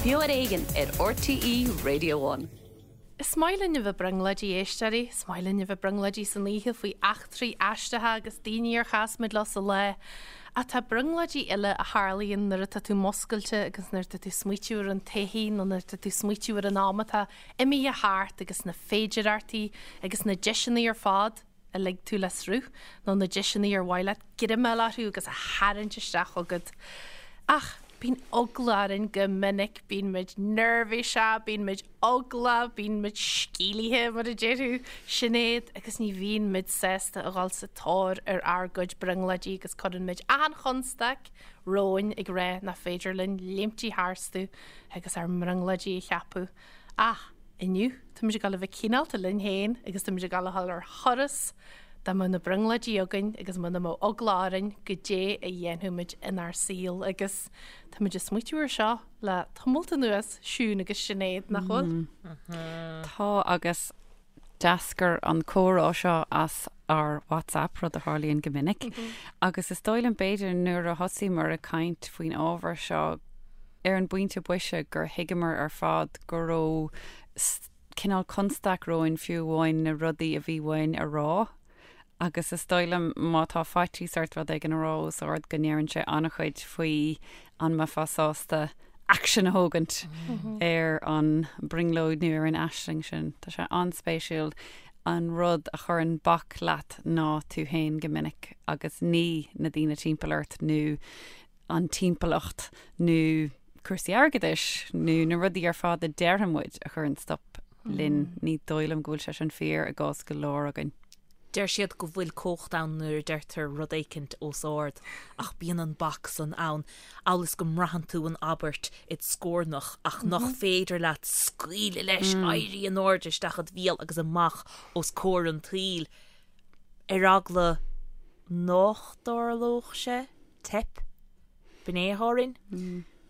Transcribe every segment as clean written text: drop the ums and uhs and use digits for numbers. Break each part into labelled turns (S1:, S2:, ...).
S1: Beo ar Éigean ar RTÉ Radio One.
S2: Is maith linn a bheith brionglóidí, a éisteoirí. Is maith linn a bheith brionglóidí san oíche faoi eachtraí aisteacha agus daoine ar chas muid leo sa lá. Ach tá brionglóidí eile a tharlaíonn nuair atá tú muscailte agus nuair atá tú smaoitiú ar an todhchaí nó nuair atá tú smaoitiú ar an am atá imithe thart agus na féidireachtaí agus na deiseanna ar fad a lig tú le sruth, nó na deiseanna ar mhaith leat greim a fháil orthu agus a tharraingt isteach chugat. Ach bíonn eagla orainn go minic, bíonn muid neirbhíseach, bíonn muid eaglach, bíonn muid sceimhlithe, mar a déarfadh Sinéad, agus ní bhíonn muid sásta a dhul sa tóir ar ár gcuid brionglóidí agus cuireann muid achan chonstaic romhainn ag rá nach féidir linn léimtí tharstu agus ár mbrionglóidí a cheapadh. Ach inniu, táimid ag dul a bheith cineálta linn féin agus táimid ag dul a dhul ar thuras dá mbeadh na brionglóidí againn agus muna mbeadh eagla orainn goidé a dhéanfadh muid inár saol agus táimid ag smaoitiú ar seo le tamalt anuas, Siún agus Sinéad, nach bhfuil?
S3: Tá agus d'eascair an comhrá seo as ár WhatsApp, rud a tharlaíonn go minic, agus is dóigh liom b'fhéidir nuair a thosaíomar ag caint faoin ábhar seo ar an bpointe boise gur thuigeamar ar fad go raibh cineál constaic romhainn fiú amháin na rudaí a bhí uainn a rá agus is dóigh liom má tá faitíos ort rud éigin a rá os ard go ndeireann sé an-chuid faoi an mbeifeá sásta aicsean a thógaint ar an brionglóid nó ar an aisling sin. Tá sé an-spéisiúil an rud a chuireann bac leat ná tú féin go minic agus ní na daoine timpeall ort nó an timpeallacht nó cúrsaí airgeadais nó na rudaí ar fad a déarfaidh muid a chuireann stop linn. Ní dóigh liom go bhfuil sé sin fíor i gcás go leor againn.
S4: Deir siad go bhfuil cumhacht ann nuair a deirtear rud éicint os ard, ach bíonn an bac san ann, amhail is go mbraitheann tú an abairt id scornach ach nach féidir leat scaoileadh leis, éirí in airde isteach id bhéal agus amach os comhair an tsaoil, ar eagla nách dtarlódh sé, teip, b'in é atá orainn.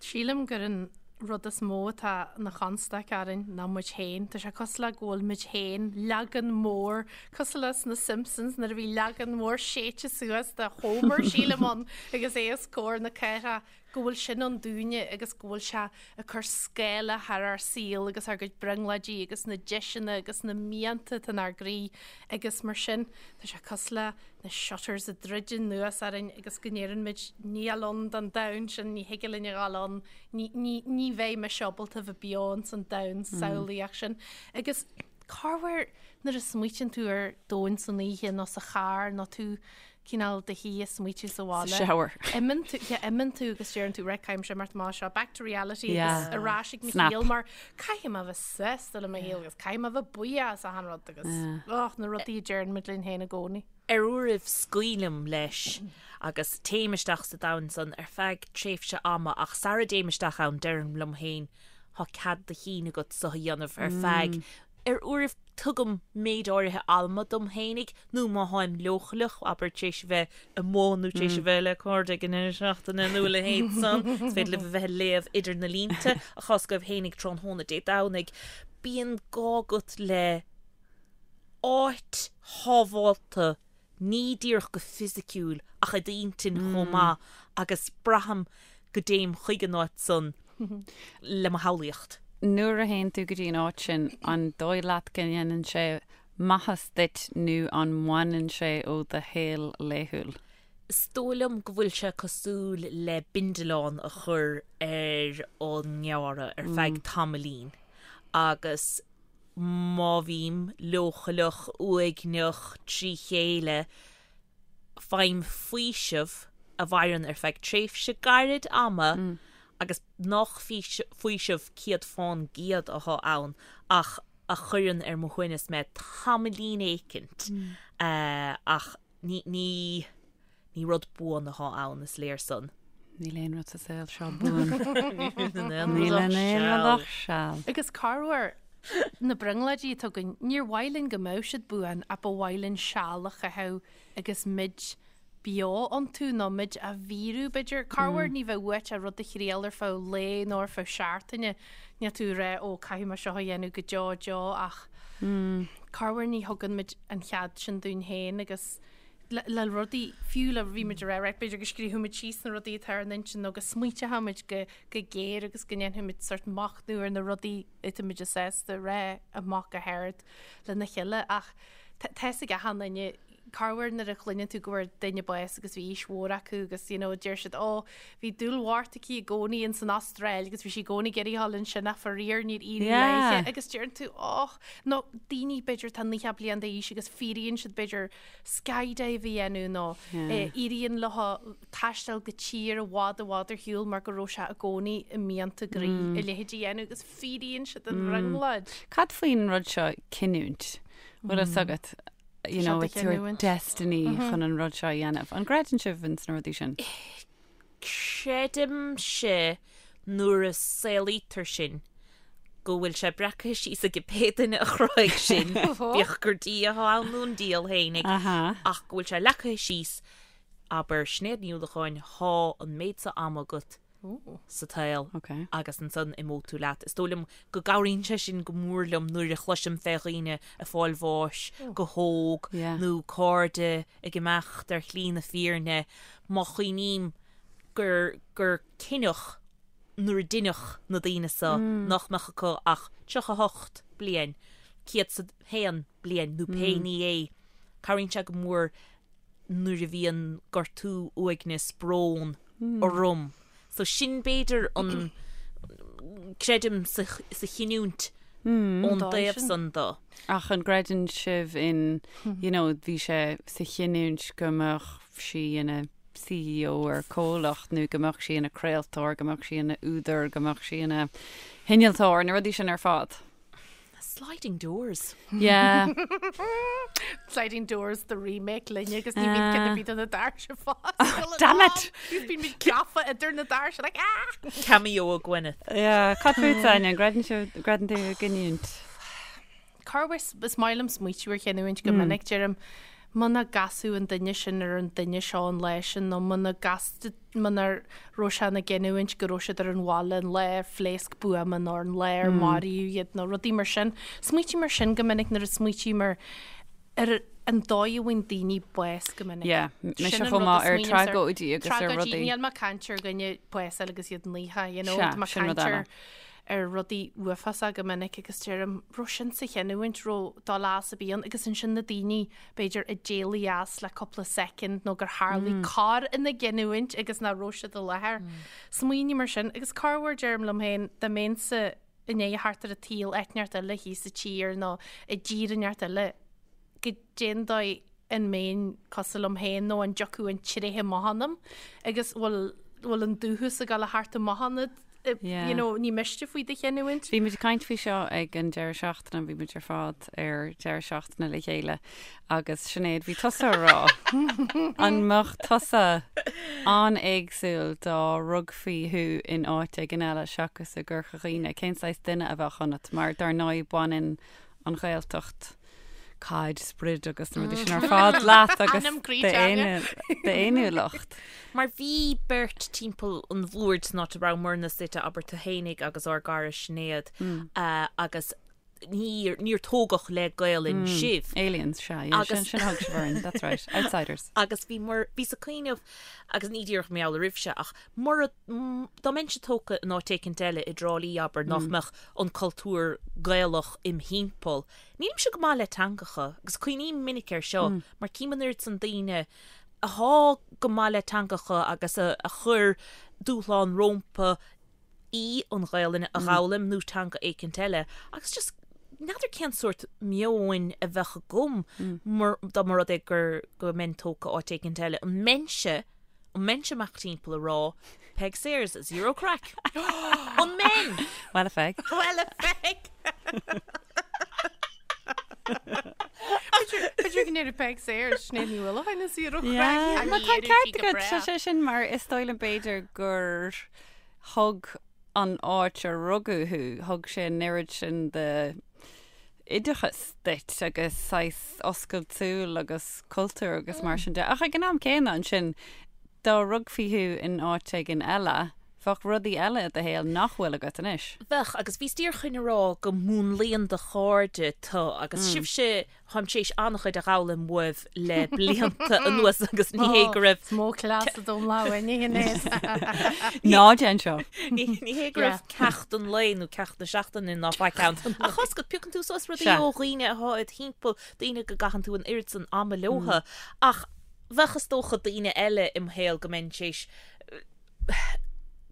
S2: Sílim gur an rud is mó atá ina chonstaic orainn ná muid féin. Tá sé cosúil le go bhfuil muid féin, leagan mór, cosúil leis na Simpsons nuair a bhí leagan mór séite suas de Homer, sílim ann, agus é os comhair na cathrach, go bhfuil sin ann dúinne agus go bhfuil sé ag cur scáile thar ár saol agus ár gcuid brionglóidí agus na deiseanna agus na mianta atá inár gcroí agus mar sin tá sé cosúil le na shutters ag druid anuas orainn agus go ndeireann muid níl ann don domhan sin, ní thig linn a dhul ann, ní, ní, ní bheidh mise ábalta bheith beo ins an domhan samhlaíoch sin. Agus corruair nuair a smaoitíonn tú ar domhan san oíche nó sa charr nó tú cineál do shuí ag smaoitiú sa bhaile.
S3: Sa shower.
S2: Imíonn tú, yeah, imíonn tú agus deireann tú, right, caithfidh mise imeacht amach as seo, back to reality agus ar ais ag mo shaol mar caithfidh mé bheith sásta le mo shaol agus caithfidh mé bheith buíoch as achan rud agus och, na rudaí a deireann muid linn féin i gcónaí.
S4: Ar uairibh scaoilim leis agus téim isteach sa domhan san ar feadh tréimhse ama ach sara dtéim isteach ann deirim liom féin thá cead do chinn agat so a dhéanamh ar feadh Ar uairibh tugaim méid áirithe ama dom fhéinig, nó má tháim leochaileach, abair, tar éis a bheith amuigh nó tar éis a bheith le cairde ag an deireadh seachtaine nó a leithéid san, is féidir libh a bheith ag léamh idir na línte, a chás agaibh fhéinig tráthnóna Dé Domhnaigh. Bíonn gá agat le áit shábhálta ní díreach go fisiciúil ach i d'intinn chomh maith agus braithim go dtéim chuig an áit san le mo shamhlaíocht.
S3: Nuair a théann tú go dtí an áit sin, an dóigh leat go ndéanann sé maitheas duit nó an mbaineann sé ó do shaol laethúil?
S4: Is dóigh liom go bhfuil sé cosúil le bindealán a chur ar an ngearradh ar feadh tamaillín agus má bhím leochaileach, uaigneach, trí chéile, faighim faoiseamh a mhaireann ar feadh tréimhse gairid ama agus nach faoiseamh 100% atá ann ach a chuireann ar mo shuaimhneas mé tamaillín éicint ach ní, ní. Ní rud buan atá ann, is léir san.
S3: Níl aon rud sa saol seo buan. Níl aon rud ach seal.
S2: Agus corruair, na brionglóidí atá againn, níor mhaith linn go mbeadh siad buan ach ba mhaith linn seal a chaitheamh agus muid beo iontu nó muid á bhfíorú, b'fhéidir. Corruair ní bheadh uait ach rud a thriail ar feadh lae nó ar feadh seachtaine. Níl tú ag rá, ó, caithfidh mé seo a dhéanamh go deo deo ach corruair ní thugann muid an chead sin dúinn féin agus. Le rudaí, fiú le, bhí muid ag rá, right, b'fhéidir go scríobfaidh muid síos na rudaí atá ar an intinn nó go smaointeoidh muid go go géar agus go ndéanfaidh muid sort machnamh ar na rudaí atá muid sásta a rá amach go hard lena chéile ach tá tá fhios ag achan duine corruair nuair a chluineann tú go bhfuair duine bás agus bhí aois mhór acu agus you know deir siad ó bhí dúil mhór aici i gcónaí ins an Astráil agus bhí sí i gcónaí ag iarraidh dhul ansin ach faraor níor éirigh
S3: Yeah.
S2: léithe agus deireann tú och nó daoine b'fhéidir atá 90 bliain d'aois agus fíoraíonn siad b'fhéidir skydive a dhéanamh nó éiríonn leo taisteal go tír i bhfad i bhfad ar shiúl mar go raibh sé i gcónaí i mianta a gcroí a leithéid a dhéanamh agus fíoraíonn siad an bhrionglóid.
S3: Cad faoin rud seo cinniúint? Bhfuil fhios agat, you know, it's your destiny chun an rud seo a dhéanamh. An gcreideann sibh ins na rudaí sin?
S4: Creidimse nuair a saolaítear sinn go bhfuil sé breactha síos ag pé duine a chruthaigh sinn, bíodh gur Dia atá ann nó an diabhal fhéinig, ach go bhfuil sé leagtha síos, abair, Sinéad Ní Uallacháin, thá an méid so ama agat sa tsaol agus ansan imeoidh tú leat. Is dóigh liom go gcabhraíonn sé sin go mór liom nuair a chloisim fé dhaoine ag fáil bháis go hóg nó cairde ag imeacht ar shlí na fírinne, má chuimhním gur gur cinneadh nuair a deineadh na daoine so nach mbeadh acu ach 38 bliain, 101 bliain nó pé ní é, cabhraíonn sé go mór nuair a bhíonn gortú, uaigneas, brón orm. So sin b'fhéidir an, creidim sa sa chinniúint ón dtaobh san
S3: de. Ach an gcreideann sibh in, you know, bhí sé sa chinniúint go mbeadh sí ina CEO ar comhlacht nó go mbeadh sí ina craoltóir, go mbeadh sí ina údar, go mbeadh sí ina hinnealtóir, na rudaí sin ar fad?
S4: Sliding Doors.
S3: Yeah.
S2: Sliding Doors the remake linne agus ní bhíonn ceann ar bith de na doirse foscailte.
S3: Damn it!
S2: Agus bíonn muid gafa idir na doirse like ah!
S4: Cameo ó Gwyneth.
S3: Yeah, cad fútsa, Áine, an gcreideann sibh, gcreideann tú i gcinniúint?
S2: Corruair is maith liom smaoitiú ar chinniúint go minic, deirim, muna gcasfadh an duine sin ar an duine seo an lá sin nó muna gcas, muna raibh sé ina gcinniúint go raibh siad ar an bhaile an lá ar phléasc buama nó an lá ar maraíodh iad nó rudaí mar sin. Smaoitím ar sin go minic nuair a smaoitím ar ar an dóigh a bhfaigheann daoine bás go minic.
S3: Yeah, mise Sin an chomh rud a maith ar smaoinímse ar. tragóidí agus ar
S2: Tragóidí, rudaí. níl mé ag caint ar dhuine bás a fháil agus iad naofa, you know, Sea, tá mé ag sin rud caint ar eile. ar rudaí uafásacha go minic agus deirim, raibh sin sa chinniúint, raibh dul as a bhí ann agus ansin na daoine b'fhéidir a d'éalaigh as le cúpla soicind nó gur tharlaigh cor ina gcinniúint agus nach raibh siad i láthair. Smaoiním ar sin agus corruair deirim liom féin dá mbeinnse i ndiaidh a theacht ar an tsaol áit inteacht eile thíos sa tír nó i dtír inteacht eile goidé an dóigh an mbeinn cosúil liom féin nó an dtiocfadh an tréithe amach ionam agus bhfuil bhfuil an dúchas ag dul a theacht amach ionat
S3: Yeah.
S2: you know, ní miste faoi do chinniúint.
S3: Bhí muid ag caint faoi seo ag an deireadh seachtaine, bhí muid ar fad ar deireadh seachtaine le chéile agus Sinéad, bhí tusa ag rá an mbeadh tusa an-éagsúil dá rugfaí thú in áit éigin eile seachas i gCorca Dhuibhne, cén saghas duine a bheadh ionat mar dar ndóigh baineann an Ghaeltacht caid, sprid agus na rudaí sin ar fad leat agus
S2: Anam croí teanga.
S3: d'fhéiniúlacht.
S4: Mar bhí beirt timpeall an bhoird san áit a rabhamarna suite, abair tú fhéinig agus ár gcara Sinéad, agus níor, níor tógadh le Gaolainn sibh.
S3: Aliens, sea, yeah, sin, sin a thug sibh orainn, that's right, outsiders.
S4: Agus bhí mar, bhíos ag cuimhneamh, agus ní díreach mar gheall oraibhse, ach mura, dá mbeinnse tógtha in áit éicint eile, i dTrá Lí, abair, nach mbeadh an cultúr Gaelach im thimpeall. Nílimse go maith le teangacha, agus cuimhním minic air seo, mar cím an oiread san daoine athá go maith le teangacha agus a chuir dúshlán rómpa í an Ghaelainn a dh'fhoghlaim nó teanga éicint eile, agus just n'fheadar cén sórt meoin a bheadh agam mur, dá mba rud é gur, go mbeinn tógtha áit éicint eile. An mbeinnse An mbeinnse amach timpeall ag rá Peig Sayers, zero craic? An mbeinn?
S3: Well a Pheig.
S2: Well a Pheig! B'fhéidir go ndéarfadh Peig Sayers, Sinéad Ní Uallacháin is zero craic.
S3: Yeah. Má tá an ceart agat, tá sé sin mar is dóigh liom b'fhéidir gur thug an áit a rugadh thú, thug sé an oiread sin de oideachas duit agus saghas oscailt súl agus cultúr agus mar sin de. Ach ag an am céanna ansin, dá rugfaí thú in áit éigin eile, Bheadh rudaí eile i do shaol nach bhfuil agat anois.
S4: Bheadh, agus bhíos díreach chun a rá go múnlaíonn do chairde tu agus sibhse, táim tar éis an-chuid a dh'fhoghlaim uaibh le blianta anuas agus ní hé go raibh.
S2: Is mó cleas a dom lá uainne Shinéad.
S3: Ná déan seo.
S4: Ní hé go raibh ceacht an lae nó ceacht na seachtaine ná faic ann. Ach tá's agat, piocann tú suas rudaí ó dhaoine atá id thimpeall, daoine go gcaitheann tú an oiread san ama leotha. Ach bheadh is dócha daoine eile im shaol go mbeinn tar éis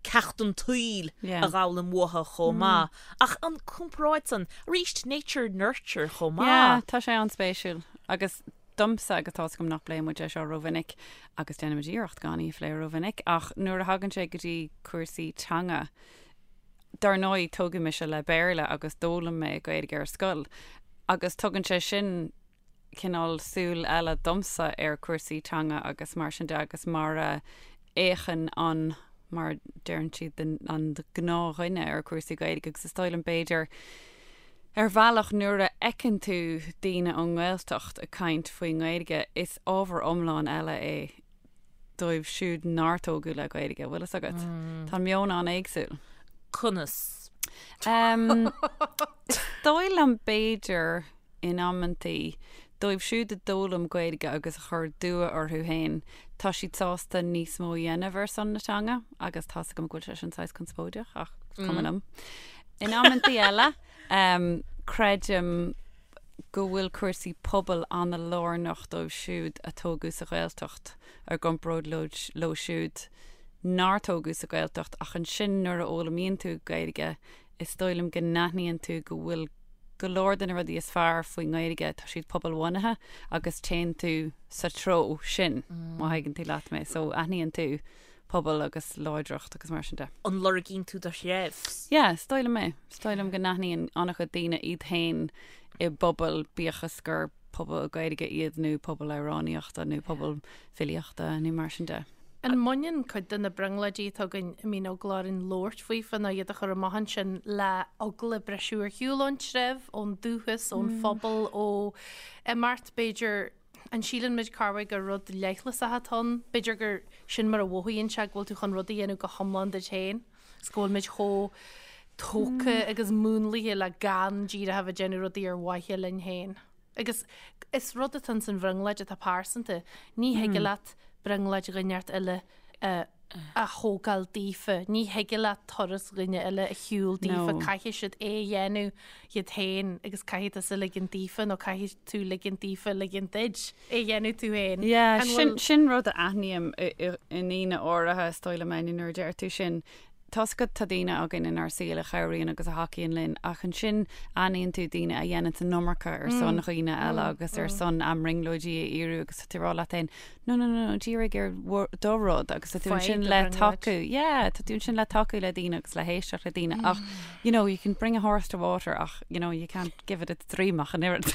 S4: ceacht an tsaoil a dh'fhoghlaim uathu chomh maith. Ach an comparáid san, arís, nature nurture chomh maith.
S3: Yeah, tá sé an-spéisiúil. Agus domsa, agus tá's agam nach bpléann muid é seo rómhinic, agus déanaimid iarracht gan í a phlé rómhinic, ach nuair a thagann sé go dtí cúrsaí teanga, dar ndóigh, tógadh mise le Béarla agus d'fhoghlaim mé Gaeilge ar scoil, agus tugann sé sin cineál súil eile domsa ar chúrsaí teanga agus mar sin de agus mar a fhéachann an, mar a deireann siad, an gnáthdhuine ar chúrsaí Gaeilge agus is dóigh liom b'fhéidir ar bhealach nuair a fheiceann tú daoine ón nGaeltacht ag caint faoin nGaeilge is ábhar iomlán eile é dóibh siúd nár tógadh le Gaeilge, bhfuil fhios agat? Tá an meon an-éagsúil.
S4: Conas?
S3: Is dóigh liom b'fhéidir in amantaí, dóibh siúd a d'fhoghlaim Gaeilge agus a chuir dua orthu féin, tá siad sásta níos mó a dhéanamh ar son na teanga, agus tá's agam go bhfuil sé sin saghas conspóideach, ach is cuma liom. In amantaí eile, creidim go bhfuil cúrsaí pobail an-lárnach dóibh siúd a tógadh sa Ghaeltacht i gcomparáid leo siúd nár tógadh sa Ghaeltacht, ach ansin nuair a fhoghlaimíonn tú Gaeilge, is dóigh liom go n-aithníonn tú go bhfuil go leor de na rudaí is fearr faoin nGaeilge, tá siad pobalbhunaithe agus téann tú sa treo sin, má thuigeann tú leat mé. So aithníonn tú pobal agus láidreacht agus mar sin de.
S4: An lorgaíonn tú do threibh?
S3: Yeah, is dóigh liom é. Is dóigh liom go n-aithníonn an-chuid daoine iad féin i bpobal, bíodh is gur pobal Gaeilge iad nó pobal amhránaíochta nó pobal filíochta nó mar sin de.
S2: An mbaineann cuid de na brionglóidí atá againn a mbíonn eagla orainn labhairt faofa nó iad a chur amach ansin le eagla briseadh ar shiúl ón treibh, ón dúchas, ón phobal, ó imeacht b'fhéidir? An síleann muid corruair gur rud leithleasach atá ann? B'fhéidir gur sin mar a mhothaíonn sé go bhfuil tú chun rud a dhéanamh go hiomlán duit féin is go bhfuil muid chomh tógtha agus múnlaithe le gan díreach a bheith ag déanamh rudaí ar mhaithe linn féin. Agus is rud atá ins an bhrionglóid atá pearsanta. Ní thig leat brionglóid dhuine inteacht eile a thógáil daofa. Ní thig leat turas dhuine eile a shiúl daofa. Caithfidh siad é a dhéanamh iad féin agus caithfidh tusa ligean daofa nó caithfidh tú ligean daofa ligean duit é a dhéanamh tú féin.
S3: Yeah, sin, sin rud a aithním i ndaoine áirithe, is dóigh liom, Áine, nuair a deir tú sin. Tá's agat, tá daoine againn inár saol a chabhraíonn agus a thacaíonn linn, ach ansin aithníonn tú daoine a dhéanann an iomarca ar son dhaoine eile agus ar son a mbrionglóidí a fhíorú agus tá tú ag rá leat féin, no, no, no, no, dírigh ar do rud agus tá tú ansin le tacú, yeah, tá tú ansin le tacú le daoine agus le héisteacht le daoine ach, you know, you can bring a horse to water ach, you know, you can't give it its dream ach an oiread.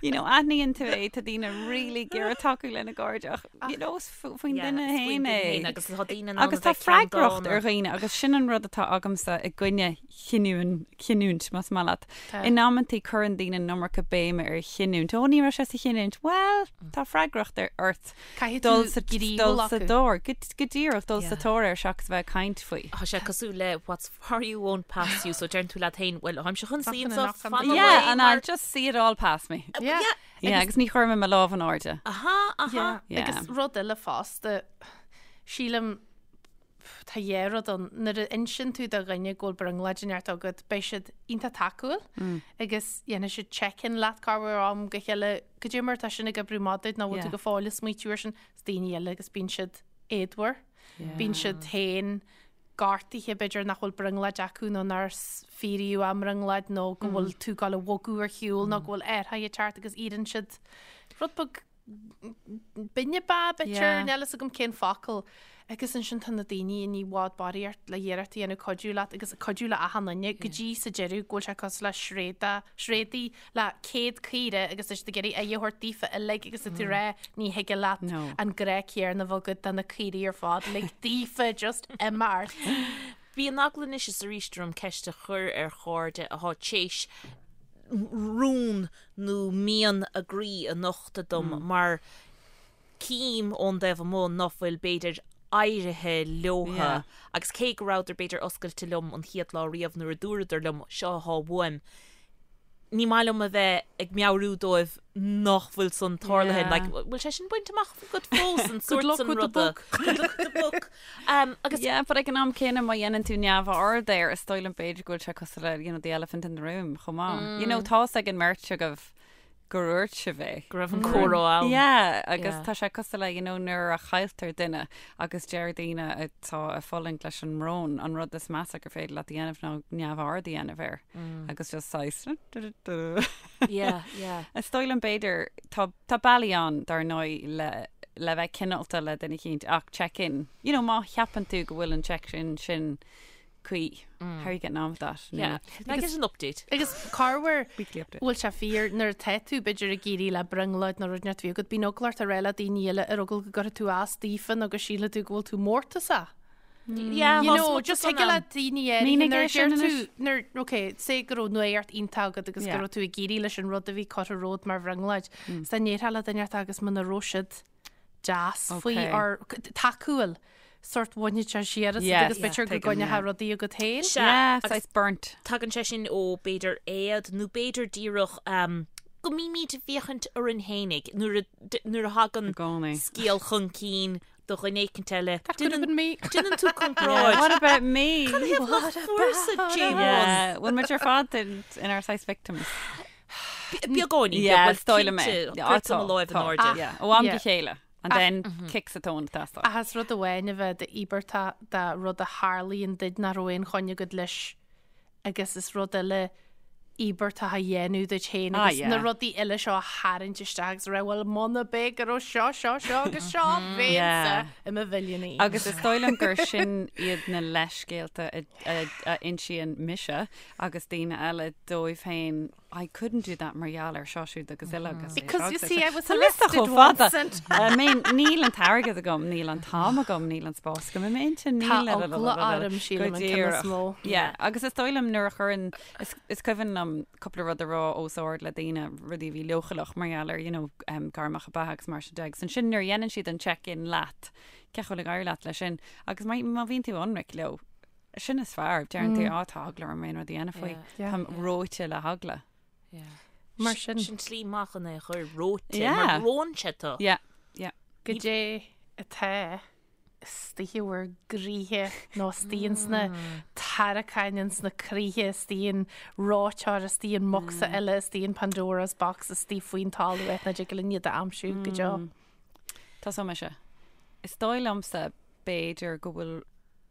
S3: You know, aithníonn tú é, tá daoine really ag iarraidh tacú lena gcairde ach, you know, is faoin duine féin é.
S4: Agus tá daoine in
S3: ann Agus tá freagracht ar dhaoine agus sin an rud atá agamsa i gcoinne chinniúint, chinniúint, más maith leat. In amantaí cuireann daoine an iomarca béime ar chinniúint. Ó, ní raibh sé sa chinniúint. Bhuel, tá freagracht ar ort
S2: Caithfidh
S3: dul
S2: tú
S3: sa
S2: gníomhú
S3: dul sa
S2: acu.
S3: dtóir, go go díreach dul sa tóir air seachas a bheith ag caint faoi.
S4: Tá sé cosúil le what's for you won't pass you, so deireann tú leat féin, well, táimse chun suí
S2: Fucking
S4: anseo,
S2: enough
S4: fan
S2: Yeah,
S3: Yeah, and
S4: mar
S3: I'll just see it all pass me.
S2: Yeah.
S3: Yeah, agus ní chuirfidh mé mo lámh in airde.
S4: Aha, aha.
S2: Yeah. Agus rud eile fosta, sílim, tá dhá rud ann, nuair a insíonn tú do dhuine go bhfuil brionglóid inteacht agat, beidh siad iontach tacúil agus dhéanfaidh siad check-in leat corruair ó am go chéile, goidé mar atá sin ag oibriú maith duit nó bhfuil tú go fóill ag smaoitiú air sin, is daoine eile agus bíonn siad éadmhar, bíonn siad féin gortaithe b'fhéidir nach bhfuil brionglóid acu nó nár fíoraíodh a mbrionglóid nó go bhfuil tú ag gabháil a bhogadh ar shiúl nó go bhfuil athruithe ag teacht agus iarrann siad rud beag binne ba b'fhéidir, níl a fhios agam cén focal. Agus ansin tá na daoine i bhfad barraíocht le iarracht a dhéanamh cuidiú leat agus cuidiú le achan duine go dtí sa deireadh go bhfuil sé cosúil le sréada, sréadaí le 100 caora agus tá siad ag iarraidh aghaidh a thabhairt daofa uilig agus tá tú ag rá ní thig leat an grá céanna a bheith agat do na caoirigh ar fad, lig daofa just imeacht.
S4: Bíonn eagla anois is arís orm ceist a chur ar chairde atá tar éis rún nó mian a gcroí a nochtadh dom mar cím ón dtaobh amuigh ná fuil b'fhéidir. áirithe leotha agus cé go rabhadar b'fhéidir oscailte liom an chéad lá riamh nuair a dúradar liom seo athá uaim, ní maith liom a bheith ag meabhrú dóibh nach bhfuil san tarlaithe. Like, bhfuil sé sin bainte amach agat fós an sórt san ruda? Good luck with the book. Um, agus
S3: Yeah, but ag an am céanna má dhéanann tú neamhaird air is dóigh liom b'fhéidir go bhfuil sé cosúil le you know, the elephant in the room chomh maith. You know, tá's ag an mbeirt agaibh gur dhúirt sibh é.
S4: Go raibh an comhrá ann.
S3: Yeah, agus
S4: Yeah.
S3: tá sé cosúil le, you know, nuair a chailltear duine agus deir daoine atá ag fulaingt leis an mbrón, an rud is measa gur féidir leat a dhéanamh ná neamhaird a dhéanamh air. Agus just saghas
S4: Yeah, yeah.
S3: Is dóigh liom b'fhéidir, tá, tá bealaí ann dar ndóigh le, le bheith cineálta le duine eicínt ach check in. You know, má cheapann tú go bhfuil an check in sin cuí. How are you getting on with that?
S4: Yeah. Can I get an update?
S2: Agus corruair
S3: Weekly update.
S2: bhfuil sé fíor nuair atá tú b'fhéidir ag éirí le brionglóid nó rud inteacht a bhí agat, bíonn eagla ort a rá le daoine eile ar eagla go gcuirfidh tú as daofa nó go sílfidh tú go bhfuil tú mórtasach.
S4: Yeah,
S2: You know, just thig le daoine áirithe
S3: Mínigh
S2: nuair
S3: é
S2: a
S3: sin
S2: deir tú
S3: anois.
S2: nuair, ok, say go raibh nuacht iontach agat agus go
S3: Yeah.
S2: raibh tú ag éirí leis an rud a bhí curtha romhat mar bhrionglóid. Is dá ndéarfá le duine inteacht agus muna raibh siad deas faoi
S3: Ok.
S2: or tacúil sórt bhainfeadh sé siar asat
S3: Yes,
S2: agus b'fhéidir go
S3: tuigim,
S2: gcoinneofá
S3: yeah.
S2: rudaí agat féin.
S4: Sea,
S3: Yeah,
S4: agus
S3: saghas burnt.
S4: tagann sé sin ó b'fhéidir éad nó b'fhéidir díreach um, go mbímid ag féachaint orainn fhéinig nuair a d- nuair a thagann
S3: I gcónaí.
S4: scéal chun cinn do dhuine éicint eile.
S2: That could have been me.
S4: Déanann tú comparáid.
S3: What about me?
S4: What about
S3: Yeah, bhfuil muid ar fad in, inár saghas victims.
S4: Beagáinín,
S3: Yeah,
S4: beag,
S3: is dóigh liom é.
S4: cinnte,
S3: Yeah,
S4: cuirtear
S3: tá,
S4: mo láimh in
S3: tá.
S4: airde.
S3: Yeah, ó am go
S2: Yeah.
S3: chéile. And then kick sa tóin teastáil.
S2: Ach is rud amháin a bheith d'íobartach de rud a tharlaíonn duit nach raibh aon choinne agat leis agus is rud eile íobartach a dhéanamh duit féin
S3: Ah,
S2: agus
S3: yeah.
S2: na rudaí eile seo a tharraingt isteach agus a rá bhuel muna b'é go raibh seo, seo, seo agus seo bheinnse
S3: Yeah.
S2: i mo mhilliúnaí.
S3: Agus is dóigh liom gur sin iad na leithscéalta a, a, a insíonn mise agus daoine eile dóibh féin I couldn't do that mar gheall ar seo siúd agus eile agus é
S2: Because
S3: seo
S2: you
S3: agus é
S2: see
S3: seo.
S2: I was
S3: Tá liosta
S2: arrested
S3: chomh fada.
S2: once and
S3: I mean, níl an t-airgead agam, níl an t-am agam, níl an spás agam i m'intinn,
S2: Tá
S3: níl
S2: eagla orm, sílim,
S3: Go
S2: an ceann is
S3: díreach.
S2: mó.
S3: Yeah, agus is dóigh liom nuair a chuireann, is, is cuimhin liom cúpla rud a rá os ard le daoine, rudaí a bhí leochaileach mar gheall ar, you know, um, gairmeacha beatha agus mar sin de. Agus ansin nuair a dhéanann siad an check-in leat, cén chaoi a bhfuil ag éirí leat leis sin, agus má, má bhíonn tú ionraic leo, sin is fearr, deireann tú, á, tá eagla orm aon rud a dhéanamh faoi.
S2: Yeah.
S3: Táim reoite le heagla.
S2: Mar sin.
S4: Sin slí maith chun é a chur reoite,
S3: Yeah.
S4: mar reonn sé tú.
S3: Yeah, yeah.
S2: Goidé atá istigh i bhur gcroíthe nó istigh ins na tarraiceáin ins na croíthe, istigh in reoiteoir, istigh in mbocsa eile, istigh in Pandora's box, istigh faoin talamh áit nach dtig linn iad a aimsiú go deo.
S3: Tosóidh mise. Is dóigh liomsa b'fhéidir go bhfuil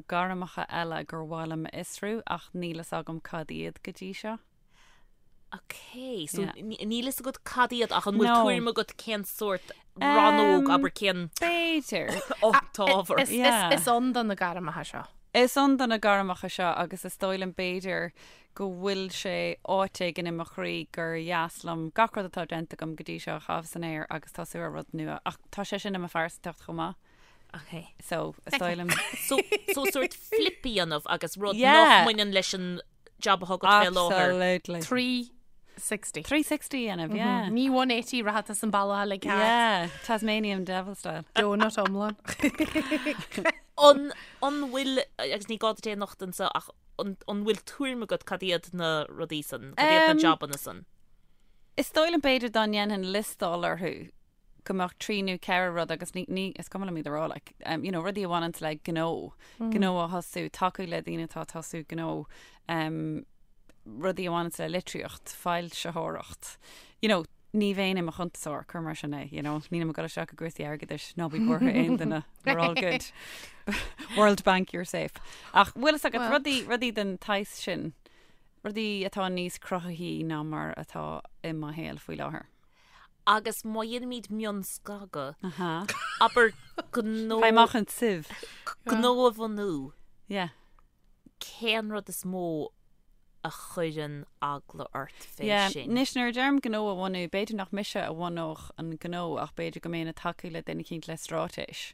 S3: gairmeacha eile gur mhaith liom a fhiosrú ach níl fhios agam cad iad go dtí seo.
S4: Ok, so
S3: Yeah.
S4: níl fhios agat cad iad ach an bhfuil
S3: No.
S4: tuairim agat cén sórt rannóg,
S3: Um,
S4: abair cén
S3: B'fhéidir.
S4: t-ábhar.
S2: Is,
S3: Yeah.
S2: is, is ann do na gairmeacha seo.
S3: Is ann do na gairmeacha seo agus is dóigh liom b'fhéidir go bhfuil sé áit éigin i mo chroí gur dheas liom gach rud atá déanta agam go dtí seo a chaitheamh san aer agus tosú ar rud nua ach tá sé sin i mo phearsantacht chomh maith.
S4: Ok.
S3: So, is dóigh liom.
S4: So, so sórt flip a dhéanamh agus rud
S3: Yeah.
S4: nach mbaineann leis an job atá agat fé láthair.
S3: Absolutely.
S2: 360.
S3: 360 a dhéanamh, yeah.
S2: Ní 180 rachaidh tú an bealach uilig thart.
S3: Yeah, Tasmanian devil style.
S2: Donut iomlán.
S4: An, an bhfuil, agus ní gá duit é a nochtadh anseo, ach an, an bhfuil tuairim agat cad iad na rudaí san, cad iad na
S3: Um,
S4: jobanna san?
S3: Is dóigh liom b'fhéidir dá ndéanfainn liostáil orthu go mbeadh 3 nó 4 rud agus ní, ní, is cuma liom iad a rá, like, um, you know, rudaí a bhaineanns le gnó, gnó a thosú, tacú le daoine atá ag tosú gnó, um, rudaí a bhaineanns le litríocht, foilsitheoireacht, you know, ní bheinn i mo chuntasóir, cuir mar sin é, you know, nílim ag dul isteach i gcúrsaí airgeadais, ná bí buartha aon duine, we're all good. World Bank, you're safe. Ach bhfuil fhios agat, rudaí, rudaí den tsaghas sin, rudaí atá níos cruthaithí ná mar atá i mo shaol faoi láthair.
S4: Agus má dhéanaimid mionscagadh, abair gnó,
S3: Faigh amach an tsiv.
S4: gnó a bhunú,
S3: Yeah.
S4: cén rud is mó a chuireann eagla ort fé
S3: Yeah.
S4: sin?
S3: Anois nuair a deirim gnó a bhunú, b'fhéidir nach mise a bhunódh an gnó ach b'fhéidir go mbeinn ag tacú le duine eicínt le straitéis.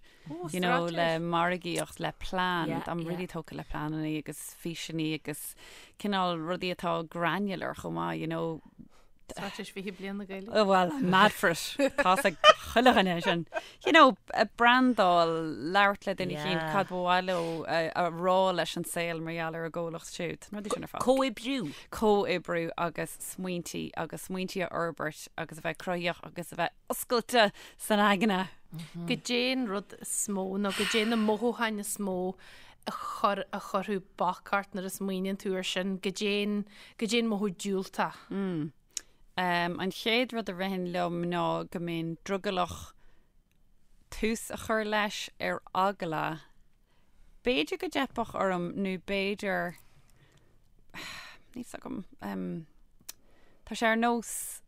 S3: You know, le margaíocht, le plean.
S4: Yeah,
S3: Táim
S4: yeah.
S3: really tógtha le pleananna agus físeanna agus cineál rudaí atá granular chomh maith, you know.
S2: Straitéis 20 Bliain na Gaeilge.
S3: Oh, well, I'm mad for it. Tá's ag chuile dhuine sin. You know, brandáil, labhairt le duine eicínt cad ba mhaith leo a rá leis an saol mar gheall ar a gcomhlacht siúd. Na rudaí sin ar fad.
S4: Comhoibriú.
S3: Comhoibriú agus smaointí agus smaointí a fhorbairt agus a bheith cruthaíoch agus a bheith oscailte san aigne.
S2: Goidé an rud is mó nó goidé na mothúcháin is mó a chur a chuirfeadh bac ort nuair a smaoiníonn tú air sin, goidé an, goidé an mothú diúltach.
S3: Mm. An chéad rud a ritheann liom ná go mbeinn drogallach tús a chur leis ar eagla b'fhéidir go dteipfeadh orm nó b'fhéidir níl 's agam tá sé ar nós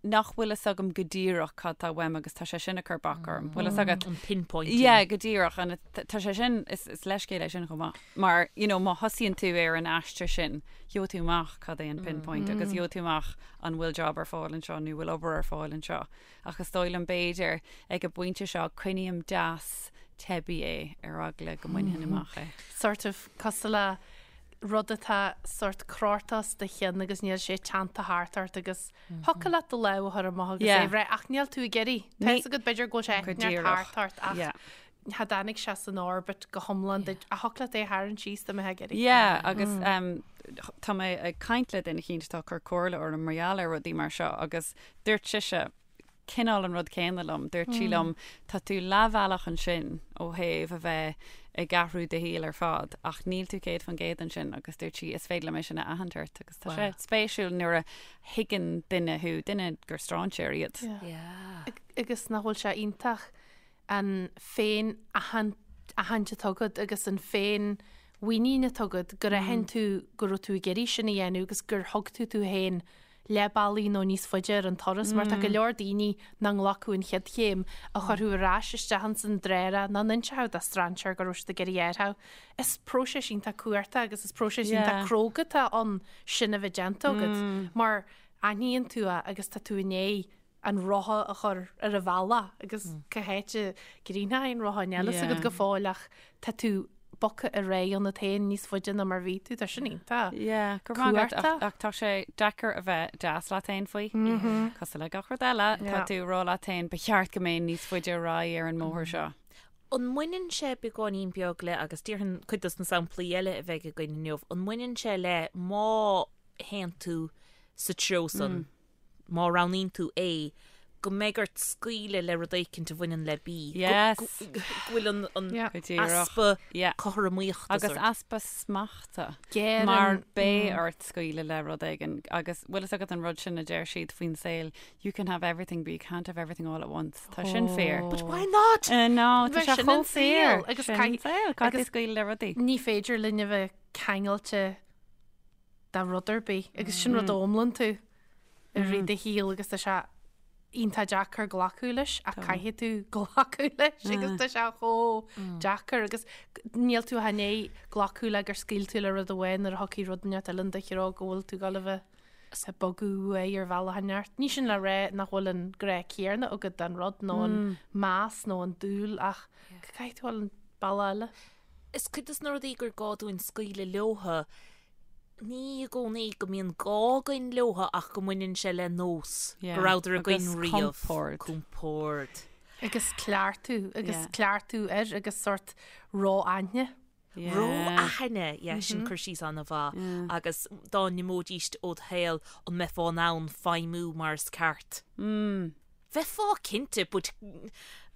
S3: nach bhfuil fhios agam go díreach cad tá uaim agus tá sé sin ag cur bac orm. Bhfuil fhios agat?
S4: An pinpointing.
S3: Yeah, go díreach. And tá sé sin, is, is leithscéal é sin chomh maith. Mar, you know, má thosaíonn tú ar an aistear sin, gheobhaidh tú amach cad é an pinpoint agus gheobhaidh tú amach an bhfuil job ar fáil anseo nó bhfuil obair ar fáil anseo. Ach is dóigh liom b'fhéidir ag an bpointe seo coinním deas teibí é ar eagla go mbainfinn amach é.
S2: Sort of cosúil le rud atá sort crota os do chionn agus níl sé teannta thart ort agus thiocfadh leat do lámh a chur amach agus é a bhreith ach níl tú ag iarraidh. Tá fhios agat b'fhéidir go bhfuil sé
S3: Go
S2: ag neart
S3: díreach.
S2: thart ort ach
S3: Yeah.
S2: cha dtáinig sé san orbit go hiomlán duit ach thiocfadh leat é a tharraingt síos dá mbeifeá ag iarraidh.
S3: Yeah, agus um, tá mé ag caint le duine eicínt atá ag cur comhairle orm mar gheall ar rudaí mar seo agus dúirt sise cineál an rud céanna liom. Dúirt sí liom, tá tú leathbhealach ansin ó thaobh a bheith ag athrú do shaoil ar fad, ach níl tú 100% ansin agus dúirt sí, is féidir liom é sin a aithint ort agus tá sé spéisiúil nuair a thuigeann duine thú, duine gur strainséir iad.
S4: Yeah.
S2: Agus nach bhfuil sé iontach an féin-aithint atá agat agus an féin-mhuinín atá agat gur aithin tú go raibh tú ag iarraidh sin a dhéanamh agus gur thug tú tú féin leath bealaigh nó níos faide ar an turas mar tá go leor daoine nach nglacfadh an chéad chéim a chuirfeadh ar ais isteach ins an dtreorach nach n-inseochadh do strainséir go raibh siad ag iarraidh athrú. Is próiseas iontach cumhachtach agus is próiseas iontach cróga atá ann sin a bheith déanta agat mar aithníonn tú é agus tá tú i ndiaidh an rotha a chur ar a bhealach agus cá háit a gcríochnóidh an rotha níl a fhios agat go fóill ach tá tú bogtha ar aghaidh ionat féin níos faide ná mar bhí tú, tá sin iontach.
S3: Yeah, go raibh maith agat, ach tá sé deacair a bheith deas leat féin faoi. Cosúil le gach rud eile, tá tú ag rá leat féin, ba cheart go mbeinn níos faide ar aghaidh ar an mbóthar seo.
S4: An mbaineann sé beagáinín beag le, agus déarfainn cuid dos na samplaí eile a bheidh againn inniu, an mbaineann sé le má théann tú sa treo san, má roghnaíonn tú A, go mbeidh ort scaoileadh le rud éicint a bhaineann le B.
S3: Yes.
S4: Go bhfuil an an
S2: Yeah.
S3: Go díreach.
S4: easpa
S3: Yeah.
S4: cothromaíochta
S3: Agus
S4: sort.
S3: easpa smachta.
S2: Géar
S3: Mar
S2: an-
S3: beidh ort scaoileadh le rud éigin. Agus bhfuil fhios agat an rud sin a deir siad faoin saol, you can have everything but you can't have everything all at once. Tá sin fíor.
S4: But why not?
S3: Uh, no, tá
S2: Bheith
S3: sé
S2: sin
S3: chomh
S2: an saol,
S3: fíor.
S2: agus
S3: Sin
S2: caith-
S3: an saol. Caithfidh
S2: agus-
S3: tú scaoileadh le rudaí.
S2: Ní féidir linn a bheith ceangailte de rud ar bith agus sin rud a fhoghlaimíonn tú i rith do shaoil agus tá sé iontach deacair glacadh leis ach caithfidh tú glacadh leis agus tá sé chomh deacair agus níl tú ach i ndiaidh glacadh le gur scaoil tú le rud amháin nuair a thiocfaidh rud inteacht eile in do threo go bhfuil tú ag dul a bheith ag bogadh uaidh ar bhealach inteacht. Ní sin le rá nach bhfuil an grá céanna agat don rud nó an meas nó an dúil ach go caithfidh tú dul an bealach eile.
S4: Is cuid dos na rudaí gur gá dúinn scaoileadh leotha, ní i gcónaí go mbíonn gá againn leotha ach go mbaineann sé le nós, go rabhadar againn
S3: Agus
S4: riamh.
S3: compord.
S4: Compord.
S2: Agus cleachtadh, agus
S3: Yeah.
S2: cleachtadh air agus sort ró-aithne.
S3: Yeah.
S4: Ró-aithne, yeah, sin cur síos an-mhaith. Agus dá n-imeoidíst ód shaol, an mbeifeá in ann feidhmiú mar is ceart? Bheifeá cinnte, but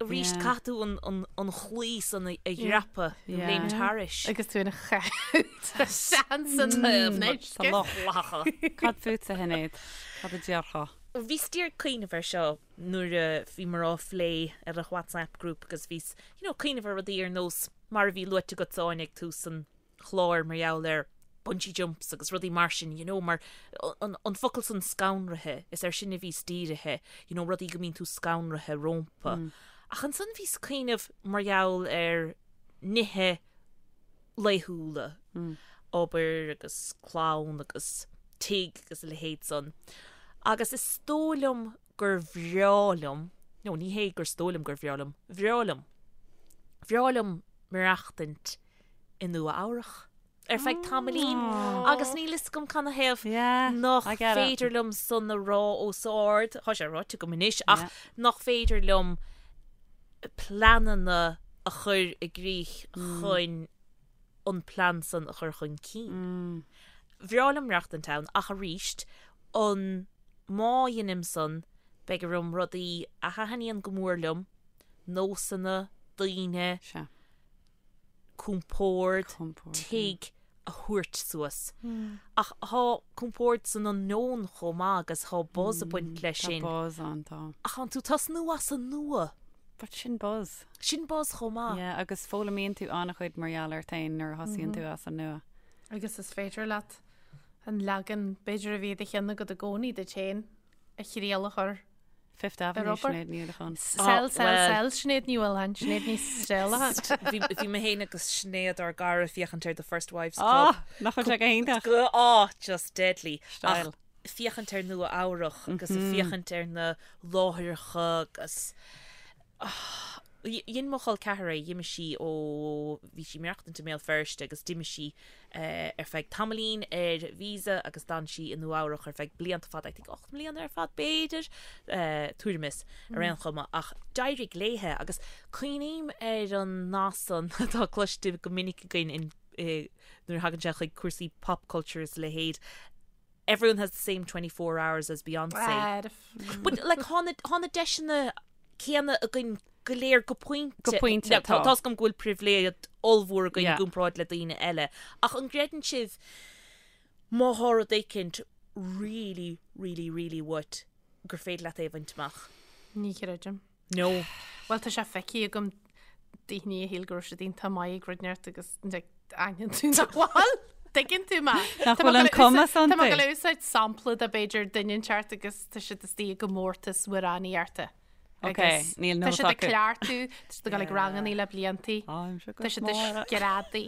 S4: arís caithfidh tú an chlaí san a dhreapadh, nó léimt thairis.
S2: Agus tú ina chaitheamh san
S3: Sa loch. Cad fútsa, a Shinéad? Cad a déarfá?
S4: Bhíos díreach ag cuimhneamh air seo nuair a bhíomar á phlé ar an WhatsApp group agus bhíos, you know, cuimhneamh ar rudaí ar nós mar a bhí luaite agat Áine ag tús an chláir mar gheall ar bungee jumps agus rudaí mar sin, you know, mar an, an focal san scanraithe, is air sin a bhíos dírithe, you know, rudaí go mbíonn tú scanraithe rompu. Mm. Ach ansan bhíos ag cuimhneamh mar gheall ar nithe laethúla, mm. obair agus clann agus tigh agus a leithéid san. Agus is dóigh liom gur bhreá liom, no, ní hé gur dóigh liom gur bhreá liom, bhreá liom. Bhreá liom maireachtaint i Nua Eabhrach. ar feadh tamaillín agus níl fhios agam canathaobh
S3: nach
S4: féidir liom san a rá os ard, tá sé ráite agam anois, ach nach féidir liom pleananna a chur i gcrích chun an plean san a chur chun cinn. Bhreá liom maireachtaint ann ach arís, an má dheinim san, beidh orm rudaí a thaitníonn go mór liom, nósanna, daoine, compord, tigh a thabhairt suas. Ach thá compord san unknown chomh maith agus thá buzz ag baint leis sin.
S3: Tá buzz ann, tá.
S4: Ach thánn tú tosnú as an nua.
S3: But sin buzz.
S4: Sin buzz chomh maith.
S3: Yeah, agus foghlaimíonn tú an-chuid mar gheall ort féin nuair a thosaíonn tú as an nua.
S2: Agus is féidir leat an leagan b'fhéidir a bhí i do cheann agat i gcónaí duit féin a thriail a chur
S3: Fifth Avenue,
S2: Ar obair.
S3: Sinéad Ní Uallacháin.
S2: Sell, sell,
S4: well.
S2: sell, Sinéad Ní Uallacháin, Sinéad Ní Steallacháin.
S4: Bhí bhí mé féin agus Sinéad ár gcara ag féachaint ar The First Wives Club.
S3: Ah, nach bhfuil sé go hiontach?
S4: Go ah, just deadly.
S3: Style.
S4: Ach féachaint ar Nua Eabhrach agus ag féachaint ar na láithreacha agus ah, dhein mo chol ceathar é, d'imigh sí ó bhí sí ag maireachtaint i mBéal Feirste agus d'imigh sí ar feadh tamaillín ar visa agus d'fhan sí i Nua Eabhrach ar feadh blianta fada, I think 8 mbliana ar fad b'fhéidir, tuairim is, ar aon chuma, ach d'éirigh léithe agus cuimhním ar an nath san atá cloiste go minic againn in nuair a thagann sé chuig cúrsaí pop culture is a leithéid, everyone has the same 24 hours as Beyonce. But like thá na thá na deiseanna céanna againn go léir go pointe.
S3: Go pointe,
S4: Now, tá
S3: tá.
S4: tá's agam go bhfuil pribhléid ollmhór againn i
S3: Yeah.
S4: gcomparáid le daoine eile. Ach an gcreideann sibh má thá rud éicint really, really, really uait gur féidir leat é a bhaint amach?
S2: Ní chreidim.
S4: No.
S2: Bhuel tá sé feicthe agam daoine a shíl go raibh siad iontach maith ag rud inteacht agus aithníonn tú nach bhfuil. Tuigeann tú mé.
S3: Nach bhfuil an cumas
S2: Tá mé
S3: iontu.
S2: ag gabháil a úsáid sampla de b'fhéidir duine inteacht agus tá siad istigh i gcomórtas amhránaíochta.
S3: Ok,
S2: Agus
S3: níl
S2: Tá
S3: nós
S2: siad ag
S3: acu.
S2: cleachtadh, tá siad ag dul ag rangannaí le bliantaí. Tá siad ag screadaí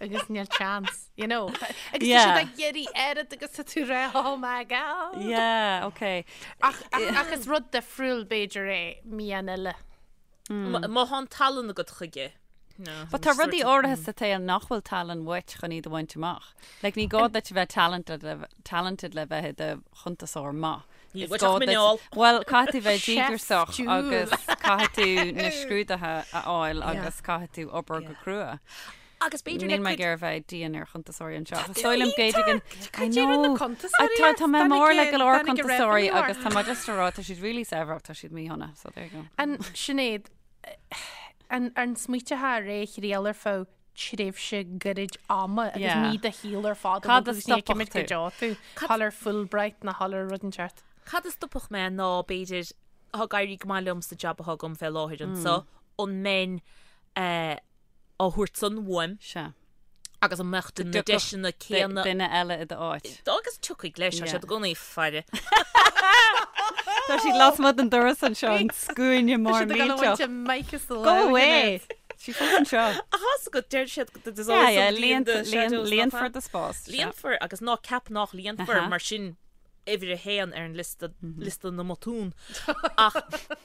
S2: agus níl chance, you know. Agus tá
S3: Yeah.
S2: siad ag iarraidh oiread agus tá tú rá, oh my god.
S3: Yeah, ok.
S2: Ach, ach, ach is rud difriúil b'fhéidir é mian eile.
S4: Má thá an tallann agat chuige. No,
S3: But tá rudaí áirithe sa tsaol nach bhfuil tallann uait chun iad a bhaint amach. Like, ní gá duit a bheith talented le, talented le bheith i do chuntasóir maith.
S4: Níl
S3: Is
S4: uait
S3: gá
S4: ach
S3: duit-
S4: muineál.
S3: Bhuel, caithfidh tú bheith
S2: Chef
S3: díograiseach
S2: Jewel.
S3: agus caithfidh tú na scrúduithe a fháil agus caithfidh tú obair go crua.
S4: Agus b'fhéidir le
S3: Níl mé
S4: cuid
S3: ag iarraidh bheith dian ar chuntasóirí anseo. Ach is dóigh liom b'fhéidir go I
S2: Cad é rud na
S3: know.
S2: cuntasóirí
S3: Tá
S2: ort?
S3: tá mé
S2: Tháinig
S3: mór le
S2: a-
S3: go leor
S2: tháinig a
S3: cuntasóirí
S2: revenue
S3: agus
S2: ort.
S3: tá mé just ag rá tá siad really saibhir ach tá siad míshona, so there you go.
S2: An Sinéad, an an smaointeofá ar é a thriail ar feadh tréimhse gairid ama agus
S3: Yeah.
S2: ní do shaol ar fad
S3: Cad a
S2: agus ní
S3: stopfadh
S2: cimid go
S3: tú?
S2: deo tú thall ar Fulbright nó thall ar rud inteacht.
S4: Cad a stopfadh mé ná b'fhéidir thá ag éirí go maith liom sa jab athá agam fé láthair anso, an mbeinn eh, á thabhairt san uaim
S3: Sea.
S4: agus an mbeadh na
S3: dtiocfadh
S4: deiseanna céanna
S3: Duine eile i d'áit.
S4: agus tiocfaidh leis, tá
S3: Yeah.
S4: siad i gcónaí ag faire.
S3: Tá siad lasmuigh den doras anseo an scuaine mór
S2: Tá siad ag dul a
S3: millteach.
S2: bhaint a mic as do
S3: Go
S2: lámh,
S3: away!
S2: Sinéad.
S3: Sí fós anseo.
S4: Ach tá's agat, deir siad there's
S3: Yeah,
S4: always
S3: yeah,
S4: somebody in the shadows, nach
S3: líonfar
S4: ea?
S3: do spás. Sea.
S4: Líonfar agus ná ceap nach líonfar
S3: Aha.
S4: mar sin uimhir a haon ar an liosta, liosta na mbotún. Ach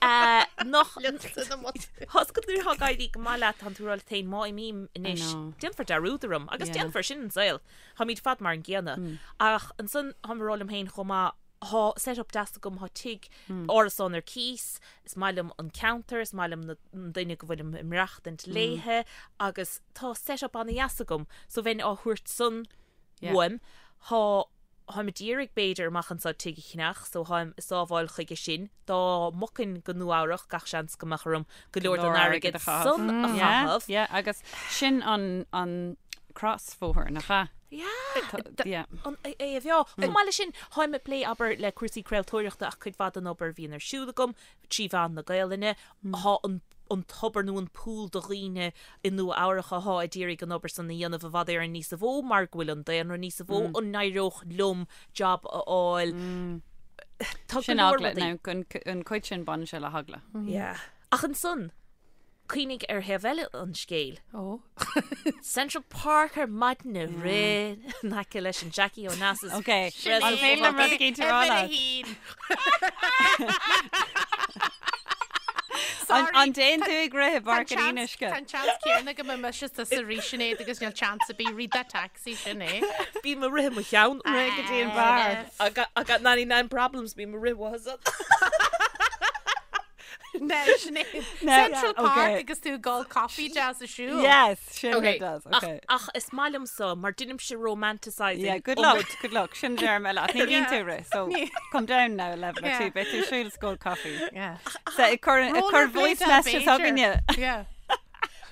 S4: eh, nach
S2: Liosta na mbotún.
S4: Tá's agat nuair atá ag éirí go maith leat, tánn tú ag rá leat féin má imím anois,
S3: know.
S4: déanfar dearúd orm agus
S3: Yeah.
S4: déanfar sin an saol. Táimid ar fad mar an gcéanna. Ach ansan táim ag rá liom féin chomh maith, thá set up deas agam, thá tigh, árasán ar cíos, is maith liom an ceantar, is maith liom na an duine go bhfuilim ag maireachtaint léithe agus tá set up ana-dheas agam so bheinn á thabhairt san
S3: Yeah.
S4: uaim. Thá Tháim ag iarraidh b'fhéidir amach anso tigh a cheannach so tháim ag sábháil chuige sin. Dá mbogfainn go Nua Eabhrach gach seans go mbeadh orm go leor den airgead san a
S3: Yeah,
S4: chaitheamh.
S3: yeah, agus sin an an crosbhóthar, nach ea?
S4: Yeah.
S3: Yeah.
S4: An é a bheá. Chomh maith leis sin, tháim ag plé, abair, le cúrsaí craoltóireachta ach cuid mhaith den obair a bhíonn ar siúl agam trí mheán na Gaelainne, thá an an tobar nó an pool de dhaoine i Nua Eabhrach athá ag iarraidh an obair san a dhéanamh i bhfad Éireann níosa mhó mar go bhfuil an daonra níosa mhó, an n-éireodh liom job a fháil? Tá go
S3: Sin
S4: leor
S3: eagla,
S4: rudaí.
S3: now, an, an cuid sin baineann sé le heagla.
S4: Yeah. Ach ansan, cuimhnigh ar thaobh eile an scéil.
S2: Ó.
S4: Central Park ar maidin ag rith in aice leis an Jackie Onassis.
S3: Ok, an féidir liom rud éicint a rá leat?
S2: Sorry.
S3: An dtéann tú ag rith i bPáirc an Fhionnuisce?
S2: Tá an seans céanna go mbeidh mise tusa arís Sinéad agus níl chance ar bith rith that taxi sin é.
S4: Bím ag rith i mo cheann.
S3: Rith go dtí an beár.
S4: I got, I got 99 problems, bím ag rith uathu.
S2: No, Sinéad. Central Park okay. agus tú ag ól coffee deas ag siúl.
S3: Yes, sin okay. does. Okay.
S4: Ach, ach is maith liom so, mar deinimse romanticising.
S3: Yeah, good luck, good luck. Sin deir mé leat. Ní bhíonn tú ag rith, so come down now level or two. Beidh tú ag siúl is ag ól coffee.
S2: Yeah.
S3: So ag cur ag cur voice messages againne.
S2: Yeah.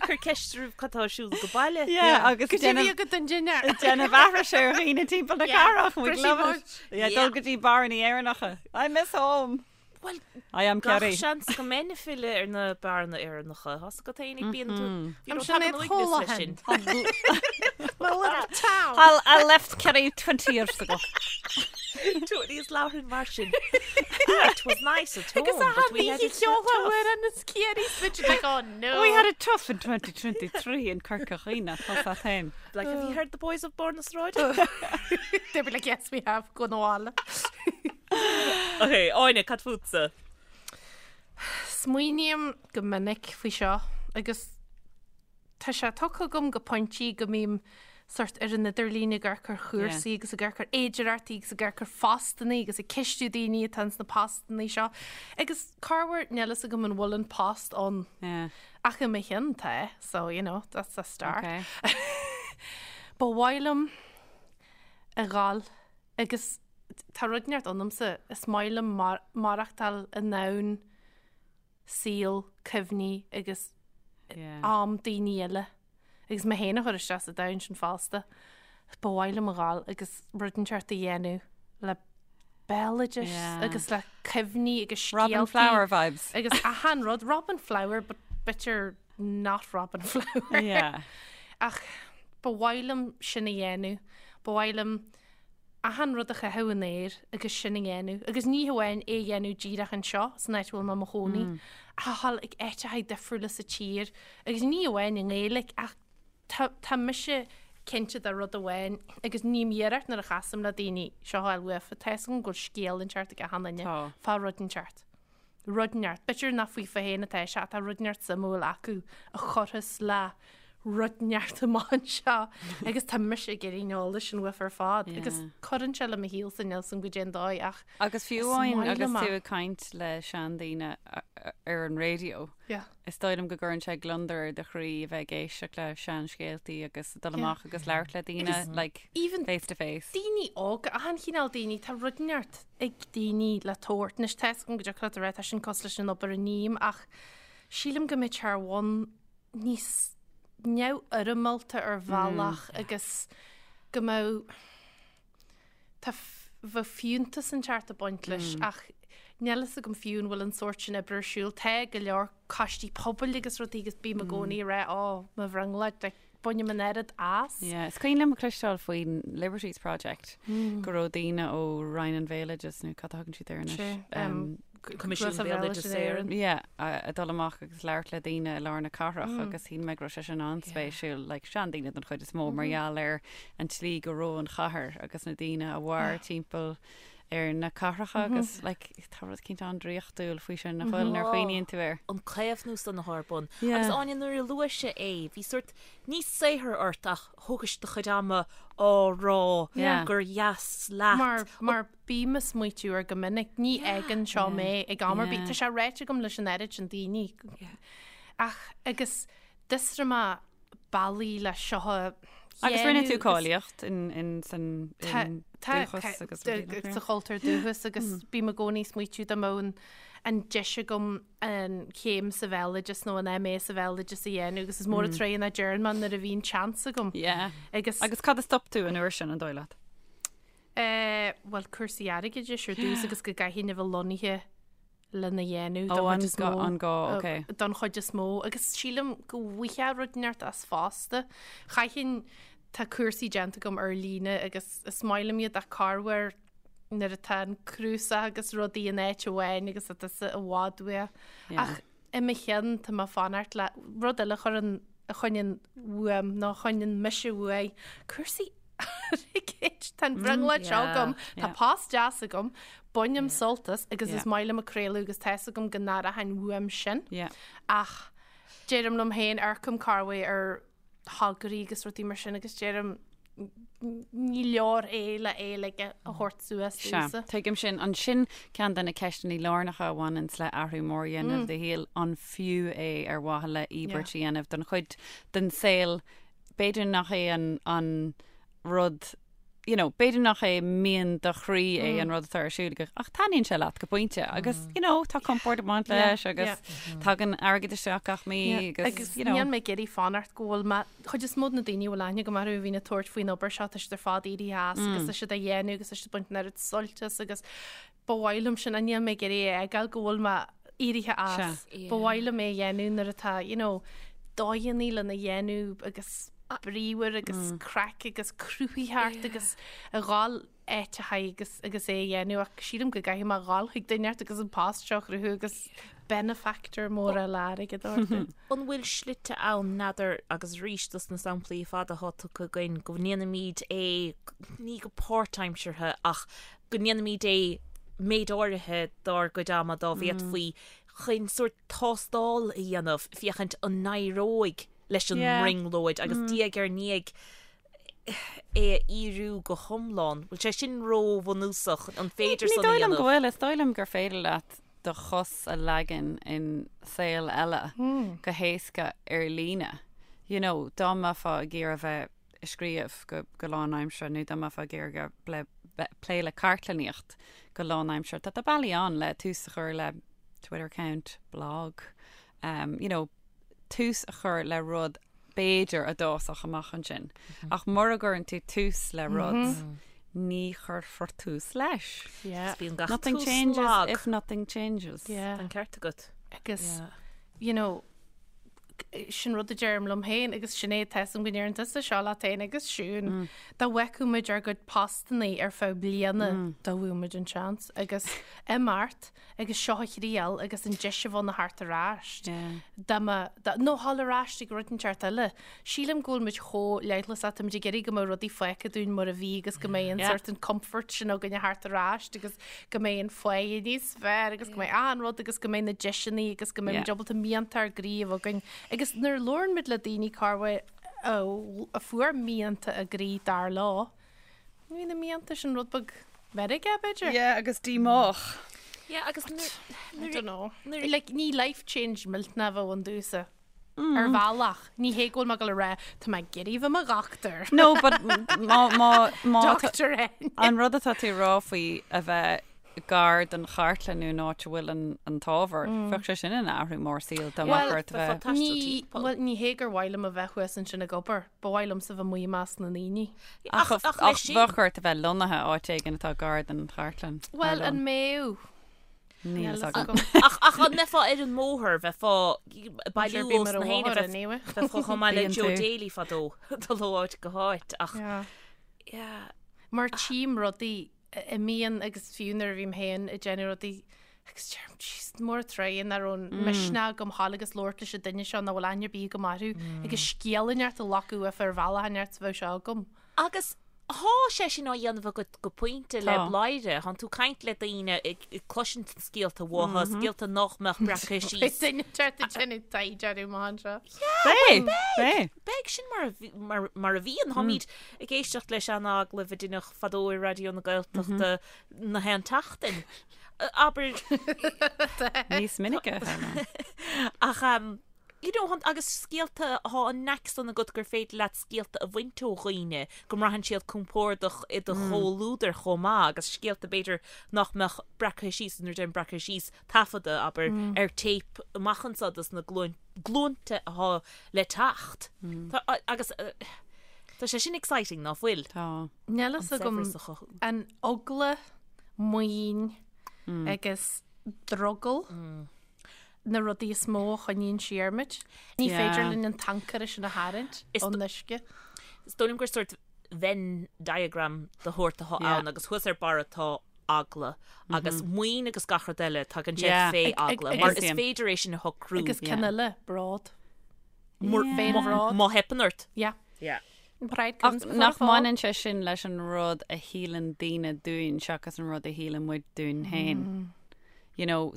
S4: Cur ceist oraibh cad tá ar siúl go baile.
S3: Yeah, agus
S2: Go dtí agat don dinnéar.
S3: déanamh aithris ar dhaoine timpeall na cathrach. We
S2: Pretty
S3: love it.
S2: much.
S3: Yeah, dul go dtí beáranna Éireannacha. I miss home.
S4: Bhuel,
S3: I am
S4: gach
S3: Kerry.
S4: seans go mbeinn ag filleadh ar na beáranna Éireannacha. Tá's agat féin ag bíonn tú. You
S2: I'm
S4: know,
S2: Sinéad
S4: tagann uaigneas leis
S2: Holohan.
S4: sin.
S2: My little town.
S3: I'll, I left Kerry 20 years ago.
S4: Tony is labhrann mar sin. Ah, it was nice at home,
S2: Agus a
S4: but we had
S2: bhí
S4: it
S2: ceoltha
S4: tough.
S2: uair an is Kerry switch like, oh no.
S3: We had it tough in 2023 in Corca Dhuibhne, tá sa féin.
S4: Like, have you heard the boys of Bord na Sráide?
S2: They'd be like, yes, we have, go na bhaile.
S4: Ok, Áine, cad fútsa?
S2: Smaoiním go minic faoi seo agus tá sé tugtha agam go pointí go mbím sort ar an idirlíon ag amharc ar chúrsaí agus ag amharc ar fhéidearthachtaí agus ag amharc ar phostannaí agus ag ceistiú daoine atá ins na postannaí seo. Agus corruair níl fhios agam an bhfuil an post ann
S3: Yeah.
S2: ach i mo chionn tá, so you know, that's a start.
S3: Okay.
S2: Ba mhaith liom a dhul agus tá rud inteacht ionamsa, is maith liom maireachtáil i ndomhan saol, cuimhní agus am daoine eile agus mé féin a chur isteach sa domhan sin fosta. Ba mhaith liom a dhul agus rud inteacht a dhéanamh le béaloideas agus le cuimhní agus scéaltaí.
S3: Robin Flower vibes.
S2: Agus achan rud, Robin Flower but b'fhéidir not Robin Flower.
S3: Yeah.
S2: Ach ba mhaith liom sin a dhéanamh. Ba mhaith liom achan rud a chaitheamh in aer agus sin a dhéanamh, agus ní hamháin é a dhéanamh díreach anseo, san áit a bhfuil mé i mo chónaí, ach a dhul ag áiteacha difriúla sa tír, agus ní hamháin i nGaeilge, ach tá, tá mise cinnte de rud amháin, agus ním iarracht nuair a chasaim le daoine seo a fháil uafa, tá fhios agam go bhfuil scéal inteacht ag achan duine
S3: Tá.
S2: fá rud inteacht. rud inteacht. B'fhéidir nach faofa féin atá sé, tá rud inteacht suimiúil acu a chuirfeas le rud inteacht amach anseo agus tá mise ag iarraidh an eolais sin uafa ar fad agus cuireann sé le mo shaolsa níl 's agam goidé an dóigh ach
S3: Agus fiú
S2: is
S3: amháin
S2: maith
S3: agus
S2: liom é.
S3: tú ag caint le seandaoine ar an raidió,
S2: Yeah.
S3: Is dóigh liom go gcuireann sé gliondar ar do chroí a bheith ag éisteacht le seanscéaltaí agus dul amach agus labhairt le daoine, like,
S2: Even
S3: face to face.
S2: daoine óga, achan chineál daoine, tá rud inteacht ag daoine le tabhairt. Anois tá 'fhios agam go dtiocfadh leat a rá tá sin cosúil leis an obair a ním ach sílim go mbeadh sé ar bhonn níos neamhfhoirmeálta ar bhealach agus go mbeadh Tá, bheadh fiúntas inteacht ag baint leis ach níl fhios agam fiú an bhfuil an sórt sin oibre ar siúl. Tá go leor coistí pobail agus rudaí agus bím i gcónaí ag rá ó, mo bhrionglóid, like, bainim an oiread as.
S3: Yeah, is cuimhin liom a chloisteáil faoin Liberties Project go raibh daoine ó Roinn an Bhéaloidis nó cad a thugann siad air anois?
S2: Sé, um,
S4: Coimisiún Béaloideas Éireann.
S3: Yeah, a dul amach agus labhairt le daoine i lár na cathrach agus shíl mé go raibh sé sin an-spéisiúil, like seandaoine den chuid is mó mar gheall ar an tslí go raibh an chathair agus na daoine a mhair timpeall ar na cathracha agus like tá rud eicínt an-draíochtúil faoi sin nach bhfuil nuair a chuimhníonn tú air.
S4: An caomhnú san atá ar bun.
S3: Yeah.
S4: Agus Áine nuair a luaigh sé é, bhí sórt ní saothar ort ach thógais do chuid ama á rá
S3: Yeah.
S4: gur dheas leat.
S2: Mar, mar Bím ag smaoitiú air go minic, ní fhágann seo mé ag am ar bith. Tá sé ráite agam leis an oiread sin daoine. Ach agus d'fhiosraigh mé bealaí le seo a
S3: Agus rinne tú
S2: dhéanamh agus-
S3: cáilíocht in, in, san,
S2: Tá-
S3: in
S2: tá-
S3: dúchas agus
S2: tá-
S3: rudaí nach
S2: sa chultúr dúchas agus bím i gcónaí ag smaoitiú dá mbeadh an, an deis agam an chéim sa bhéaloideas nó an MA sa bhéaloideas a dhéanamh agus is mór an tréan a deireann mé nuair a bhíonn seans agam.
S3: Yeah.
S2: Agus,
S3: Agus cad a stop tú an uair sin an dóigh leat?
S2: Eh, bhuel, cúrsaí airgeadais ar dtús agus go gcaithfinn a bheith lonnaithe lena dhéanamh
S3: Ó,
S2: don
S3: an
S2: chuid is
S3: gá,
S2: mó.
S3: an gá, ok.
S2: Don chuid is mó. Agus sílim go bhfaighfeá rud inteacht as fosta. Chaithfinn, tá cúrsaí déanta agam ar líne agus is maith liom iad ach corruair nuair atá an cnuasach agus rudaí in áit amháin agus tá tusa i bhfad uaidh.
S3: Yeah.
S2: Ach i mo cheann tá mé ag fanacht le rud eile a chuireann, a choinníonn uaim nó a choinníonn mise uaidh, cúrsaí. Airgid. Tá an bhrionglóid seo agam, tá post deas agam, bainim sult as agus is maith liom ag craoladh agus tá 'fhios agam go n-aireochainn uaim sin. Ach deirim liom féin, amharcaim corruair ar thograí agus rudaí mar sin agus deirim ní leor é le é like a thabhairt suas
S3: Sea,
S2: domhsa.
S3: tuigim sin. Ansin ceann de na ceisteanna lárnacha a bhaineanns le athrú mór a dhéanamh i do shaol, an fiú é ar mhaithe le íobairt a dhéanamh don chuid den saol b'fhéidir nach é an, an rud you know, b'fhéidir nach é mian do chroí é an rud atá ar siúl agat, ach taitníonn sé leat go pointe agus, you know, tá compord ag baint leis agus tagann airgead isteach gach mí agus,
S2: Agus
S3: you know.
S2: níl mé ag iarraidh fanacht go bhfuil mé, chuid is mó de na daoine a bhfuil aithne agam orthu a bhíonn ag tabhairt faoin obair seo, tá siad ar fad éirithe as agus tá siad á dhéanamh agus tá siad ag baint an oiread suilt as agus ba mhaith liom sin, níl mé ag iarraidh a fheiceáil go bhfuil mé éirithe as. Ba mhaith liom é a dhéanamh nuair atá, you know, dóigheanna lena dhéanamh agus bríomhar agus craic agus cruthaitheacht agus a dhul áiteacha agus agus é a dhéanamh ach sílim go gcaithfidh mé a dhul chuig duine inteacht agus an post seo a chruthú agus benefactor mór eile airgead orthu.
S4: An bhfuil slite ann, n'fheadar, agus arís dos na samplaí fada atá tugtha againn, go ndéanaimid é ní go páirtaimseartha ach go ndéanaimid é méid áirithe dár gcuid ama dá bhféadfaí chun sórt tástáil a dhéanamh féachaint an n-éireoidh leis an mbrionglóid agus diaidh ar ndiaidh é a fhíorú go hiomlán. Bhfuil sé sin róbhunúsach? An féidir
S3: Ní
S4: san a
S3: dóigh liom go
S4: dhéanamh?
S3: bhfuil. Is dóigh liom gur féidir leat do chos a leagan in saol eile go héasca ar líne. You know, dá mbeifeá ag iarraidh a bheith ag scríobh go go lánaimseartha nó dá mbeifeá ag iarraidh bheith plé le cartlannaíocht go lánaimseartha. Tá bealaí ann le tús a chur le Twitter account, blog, um, you know, tús a chur le rud b'fhéidir a d'fhásfadh amach ansin. Ach mura gcuireann tú tús le rud, ní chuirfear tús leis.
S2: Yeah.
S4: Bíonn gach
S3: Nothing
S4: tús
S3: changes
S4: lag.
S3: if nothing changes.
S2: Yeah.
S4: Tá an ceart agat.
S2: Agus, you know, Sin rud a deirim liom féin agus Sinéad tá 'fhios a'm go ndeireann tusa seo leat féin agus Siún. Dá bhfeicfeadh muid ár gcuid postannaí ar feadh bliana dá bhfaigheadh muid an seans agus imeacht agus seo a thriail agus an deis a bheith ann a theacht ar ais. Dá mba, dá, nó dhul ar ais ag rud inteacht eile. Sílim go bhfuil muid chomh leithleasach, tá muid ag iarraidh go mbeadh rudaí fágtha dúinn mar a bhí agus go mbeidh an sort an comfort sin againn a theacht ar ais agus go mbeidh an pháighe níos fearr agus go mbeidh achan rud agus go mbeidh na deiseanna agus go mbeidh muid ábalta mianta ár gcroí a bheith againn. Agus nuair a labhrann muid le daoine corruair a fuair mianta a gcroí dar leo, bhí na mianta sin rud beag meirge, b'fhéidir?
S3: Yeah, agus díomách.
S4: Yeah, agus nuair,
S2: I don't know. Like, ní life change millteanach a bheadh ann domhsa. Ar bhealach, ní hé go bhfuil mé ag dul a rá, tá mé ag iarraidh bheith i mo dhochtúir.
S3: No, but má, má, má,
S2: Doctor N.
S3: an rud atá tú ag rá faoi a bheith gar don chartlann nó an áit a bhfuil an, an t-ábhar, bheadh sé sin ina athrú mór saoil dá mbeadh ort a bheith.
S2: Ní, bhuel, ní hé gur mhaith liom a bheith thuas ansin ag obair, ba mhaith liomsa bheith amuigh i measc na ndaoine.
S3: Ach,
S4: Ach, ach
S3: ach
S4: leis sin.
S3: bheadh ort a bheith lonnaithe áit éigin atá gar don chartlann.
S2: Bhuel, an mbeadh?
S3: Níl a fhios agam.
S4: Ach ach an mbeifeá ar an mbóthar, bheifeá ag bailiú
S2: Sure,
S4: os
S2: bím ar
S4: na
S2: an
S4: héinne,
S2: bhóthar anyway.
S4: bheifeá chomh maith le
S3: Bíonn
S4: Joe
S3: tú.
S4: Daly fadó, dul ó áit go háit ach
S2: Yeah.
S4: yeah.
S2: Mar tchím rudaí a imíonn agus fiú nuair a bhím féin ag déanamh rudaí agus deirim, jeez, mór an truaighe nach raibh an misneach agam dhul agus labhairt leis an duine seo nach bhfuil aithne ar bith agam orthu agus scéal inteacht a ghlacadh uafa ar bhealach inteacht a bheadh sé agam.
S4: Agus thá sé sin á dhéanamh agat go pointe le
S3: Tá.
S4: Bladhaire. Thánn tú caint le daoine, ag cloisint na scéalta uathu, scéalta nach mbeadh breactha
S2: Beidh
S4: síos.
S2: duine inteacht ag déanamh taighde orthu amach anseo.
S3: Beidh! Beidh!
S4: Beidh, sin mar a bhí, mar, mar a bhíonn. Tháimid ag éisteacht le sean-agallaimh a deineadh fadó i Raidió na Gaeltachta na haon tseachtain. Abair.
S3: Níos minice, a tharlaíonn.
S4: Ach, You know, agus scéalta, thá an knack san agat gur féidir leat scéalta a bhaint ó dhaoine, go mbraitheann siad compordach i do chomhluadar chomh maith, agus scéalta b'fhéidir nach mbeadh breactha síos, nuair a deirim breactha síos, taifeadta, abair, ar téip amach anso dos na glúinte athá le teacht. Tá, agus tá sé sin exciting, ná fuil?
S3: Tá.
S2: Níl fhios
S4: An
S2: agam
S4: saibhreas a chothú.
S2: an eagla, maoin agus drogall. na rudaí is mó a choinníonn siar muid. Ní féidir linn an t-ancaire sin a tharraingt ón uisce.
S4: Is dóigh liom gur sórt Venn diagram de shórt atá ann agus thuas ar barra tá eagla agus maoin agus gach rud eile tagann sé fé eagla mar is féidir é sin a shocrú.
S2: Agus ceann eile, bród.
S4: Féinbhród. Má theipeann ort.
S2: Yeah.
S4: Yeah.
S2: Pride
S3: Ach
S2: comes before a
S3: nach
S2: fall.
S3: mbaineann sé sin leis an rud a shíleann daoine dúinn seachas an rud a shíleann muid dúinn féin? You know,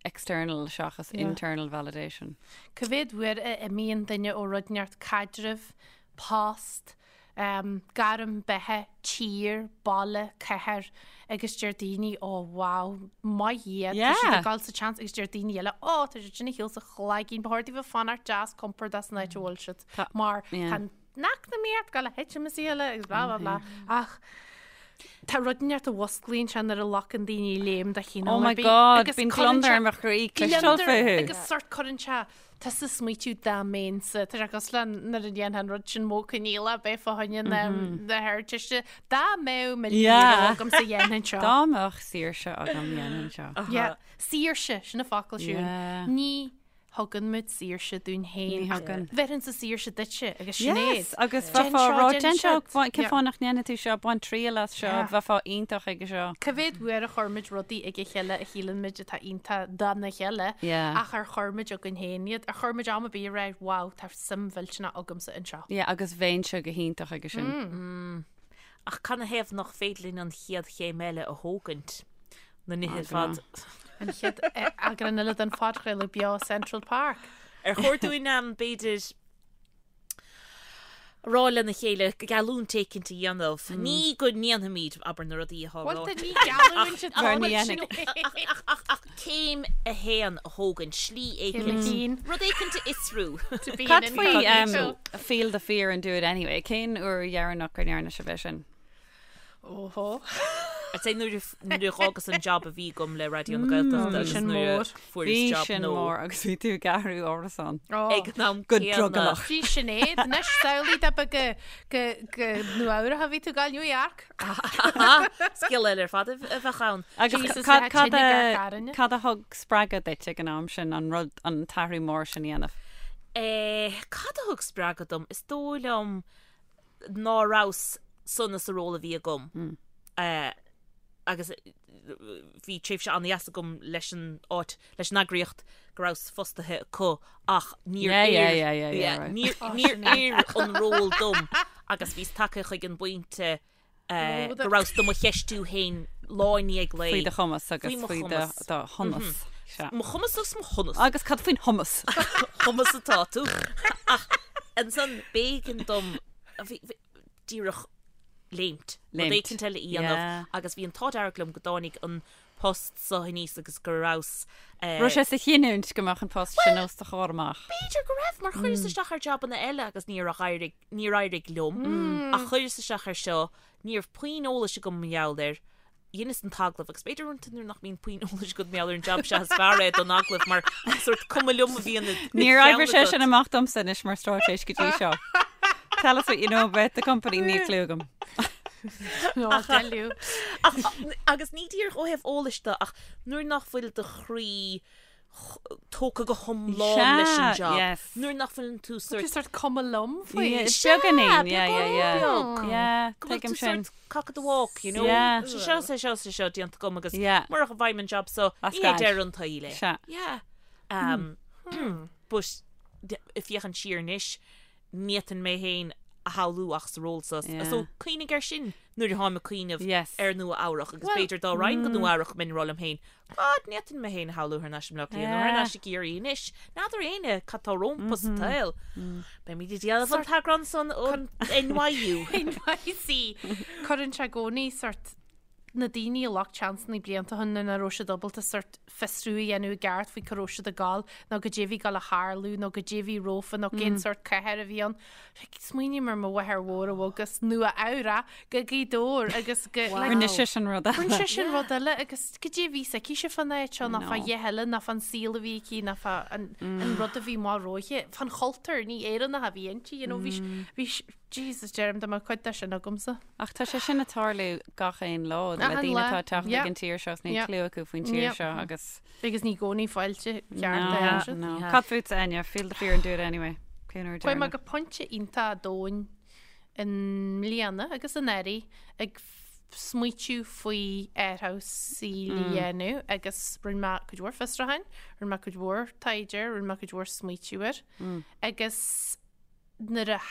S3: external seachas
S2: Yeah.
S3: internal validation.
S2: Cá mhéad uair a imíonn duine ó rud inteacht caidreamh, post, gairm beatha, tír, baile, cathair agus deir daoine ó wow, maith iad, tá siad
S3: Yeah.
S2: ag dul sa tseans agus deir daoine eile ó tá siad sin ar shiúl sa chloigeann, ba chóir daofa fanacht deas compordach san áit a bhfuil siad
S3: Tá-
S2: mar
S3: yeah.
S2: tá an eacnamaíocht ag gabháil a thitim is eile agus blah blah blah ach tá rud inteacht a mhusclaíonn sé nuair a ghlacann daoine léim de chineál
S3: Oh my
S2: ar bith
S3: God,
S2: agus
S3: bíonn
S2: cuireann
S3: gliondar
S2: sé
S3: ar mo chroí cloisteáil
S2: gliondar
S3: fúthu.
S2: agus sort cuireann sé Tusa ag smaoitiú dá mbeinnse, tá sé cosúil le nuair a dhéanfá an rud sin modh coinníollach bheith fá choinne na hArdteiste, dá mbeadh €1,000 agamsa dhéanfainn seo.
S3: Dá mbeadh saoirse agam dhéanfainn seo.
S2: Yeah, saoirse, sin an focal Siún.
S3: Yeah.
S2: Ní thugann muid saoirse dúinn féin.
S3: Ní thugann.
S2: Bheirinnse saoirse duitse agus Sinéad.
S3: Yes, agus
S2: Déan
S3: bheifeá
S2: seo,
S3: rá,
S2: déan
S3: déan seo,
S2: siúd.
S3: cén
S2: Yeah.
S3: fáth nach ndéanfaidh tú seo, bain triail as seo,
S2: Yeah.
S3: bheifeá iontach ag seo.
S2: Cá mhéad uair a chuir muid rudaí ag a chéile a shíleann muid atá iontach dona chéile
S3: Yeah.
S2: ach ar chuir muid againn féin iad? Ar chuir muid am ar bith a rá wow, tá suim mhillteanach agamsa anseo?
S3: Yeah, agus bheinnse go hiontach aige sin.
S4: Ach canathaobh nach féidir linn an chéad chéim eile a thógaint? Na nithe ar fad.
S2: An chéad eagrán eile den phodchraoladh beo Central Park.
S4: Ar chóir dúinn b'fhéidir a rá lena chéile geallúint éicint a dhéanamh. Ní go ndéanfaimid, abair, na rudaí atá
S2: Bhuel,
S4: ráite.
S2: ní geallúint atá
S3: Mar ní
S2: ann.
S3: dhéanfaidh.
S4: Ach, ach, ach céim a haon a thógaint, slí
S2: Céim a
S4: éicint,
S2: haon.
S4: rud éicint a fhiosrú.
S2: To be
S3: Cad
S2: an
S3: faoi
S2: incognito.
S3: feel the fear and do it anyway? Cén uair dheireanach go ndearna sibh é sin?
S2: Óhó.
S4: I'd say nuair a nuair a dh'fhágas an job a bhí agam le Raidió na Gaeltachta agus
S2: sin
S4: nuair a
S2: mór.
S4: fuaireas
S3: Bhí
S4: job
S3: sin
S4: nua.
S3: mór agus bhí tú ag athrú árasán.
S4: Ag an am
S3: Go
S4: céanna.
S3: drogallach.
S2: Bhí Sinéad, anois samhlaigh dá mba go go go Nua Eabhrac a bhí tú ag gabháil New York.
S4: Scéal eile ar fad a bheadh ann.
S3: Agus
S2: Jesus,
S3: cad
S2: bheadh
S3: cad
S2: tine
S3: a
S2: gar garainne.
S3: cad a thug spreagadh duit ag an am sin an rud an t-athrú mór sin a dhéanamh?
S4: Eh, cad a thug spreagadh dom? Is dóigh liom ná rabhas sona sa ról a bhí agam agus bhí tréimhse an-dheas agam leis an áit, leis an eagraíocht go rabhas fostaithe acu ach níor oir, níor oir an ról dom agus bhíos tagtha chuig an bpointe go rabhas do mo cheistiú féin lá i ndiaidh lae.
S3: Faoi do chumas agus faoi do shonas.
S4: Mo chumas agus mo shonas.
S3: Agus cad faoin shomas?
S4: Shomas atá tú. Ach ansan b'éigean dom díreach léimt. Rud éicint eile a dhéanamh agus bhí an t-ádh dearg liom go dtáinig an post so aníos agus go rabhas.
S3: Raibh sé sa chinniúint go mbeadh an post sin os do chomhair amach?
S4: B'fhéidir go raibh mar chuireas isteach ar jabanna eile agus níor éirigh, níor éirigh liom ach chuireas isteach ar seo, ní raibh puinn eolais agam mar gheall air, dheineas an t-agallamh agus b'fhéidir uaireanta nuair nach mbíonn puinn eolais agat mar gheall ar an jab sea is fearr é don agallamh mar sórt cuma liom a bhíonn i do
S3: Níor
S4: cheann
S3: oibrigh sé
S4: agat.
S3: sin amach domsa anois mar straitéis go dtí seo. Tell us what you know about the company, níl clue agam.
S2: Nó tell you.
S4: Ach, agus ní díreach ó thaobh eolais de ach nuair nach bhfuil do chroí tógtha go hiomlán leis an
S3: Sea,
S4: job.
S3: yes.
S4: Nuair nach bhfuileann tú
S2: Tú
S4: sort
S2: sort cuma liom faoi.
S3: Yeah,
S4: Sea,
S3: beagáinín, yeah, yeah,
S4: beagán
S3: yeah.
S4: beag.
S3: Yeah,
S4: Go bhfuil
S3: tuigim
S4: tú
S3: sin.
S4: sort cock of the walk, you know?
S3: Yeah.
S4: Sé seo, sé seo, sé seo déanta agam agus
S3: Yeah.
S4: murach a bhfaighim an job so,
S3: As
S4: ní hé
S3: gaid.
S4: deireadh an tsaoil é.
S3: Sea.
S4: Yeah. Um, but ag féachaint siar anois, ní fhéadfainn mé féin a shamhlú ach sa ról so.
S3: Yeah.
S4: So cuimhnigh air sin nuair atáim ag cuimhneamh
S3: Yes.
S4: ar Nua Eabhrach agus
S2: Well-
S4: b'fhéidir dá raghainn go Nua Eabhrach mbeinn ag rá liom féin, God, ní fhéadfainn mé féin a shamhlú thar n-ais i mBleá Cliath nó thar
S3: Yeah.
S4: n-ais i gCiarraí anois. N'fheadar éinne cad tá rompu sa tsaol. Beimid ag déanamh an t-eagrán san ón NYU.
S2: NYC. Cuireann sé i gcónaí sort na daoine a ghlac seansanna blianta ó shin nuair nach raibh siad ábalta sort fiosrú a dhéanamh i gceart faoi cá raibh siad ag gabháil nó goidé a bhí ag gabháil a tharlú nó goidé a bhí rompu nó cén sort cathair a bhí ann. Smaoiním ar mo mháthair mhór a bhog as Nua Eabhrac go Gaoth Dobhair agus go like,
S3: Rinne sé sin rud
S2: Rinne
S3: eile.
S2: sé sin rud eile agus goidé a bhí s'aici fán áit seo ná
S3: No.
S2: fá dhath eile ná fán saol a bhí aici ná fá an an rud a bhí mar roimhe fán chultúr ní Éireannach a bhí inti you know, bhí bhí Jesus deirim dá mbeadh cuid de sin agamsa.
S3: Ach tá sé sin ag tarlú gach aon lá le
S2: Achan
S3: daoine
S2: lá.
S3: atá ag teacht
S2: Yeah.
S3: ag an tír seo is níl
S2: Yeah.
S3: clue acu faoin tír
S2: Yeah.
S3: seo agus
S2: Agus ní i gcónaí fáilte ceart
S3: No,
S2: a siad.
S3: no.
S4: Yeah.
S3: Cad fútsa Enya, feel the fear and do it anyway. Cén uair
S2: Chuaigh mé
S3: deireanach?
S2: go pointe iontach domhain i mbliana agus anuraidh ag smaoitiú faoi athrú saoil a dhéanamh agus rinne mé cuid mhór fiosrúcháin, rinne mé cuid mhór taighde, rinne mé cuid mhór smaoitiú air agus nuair a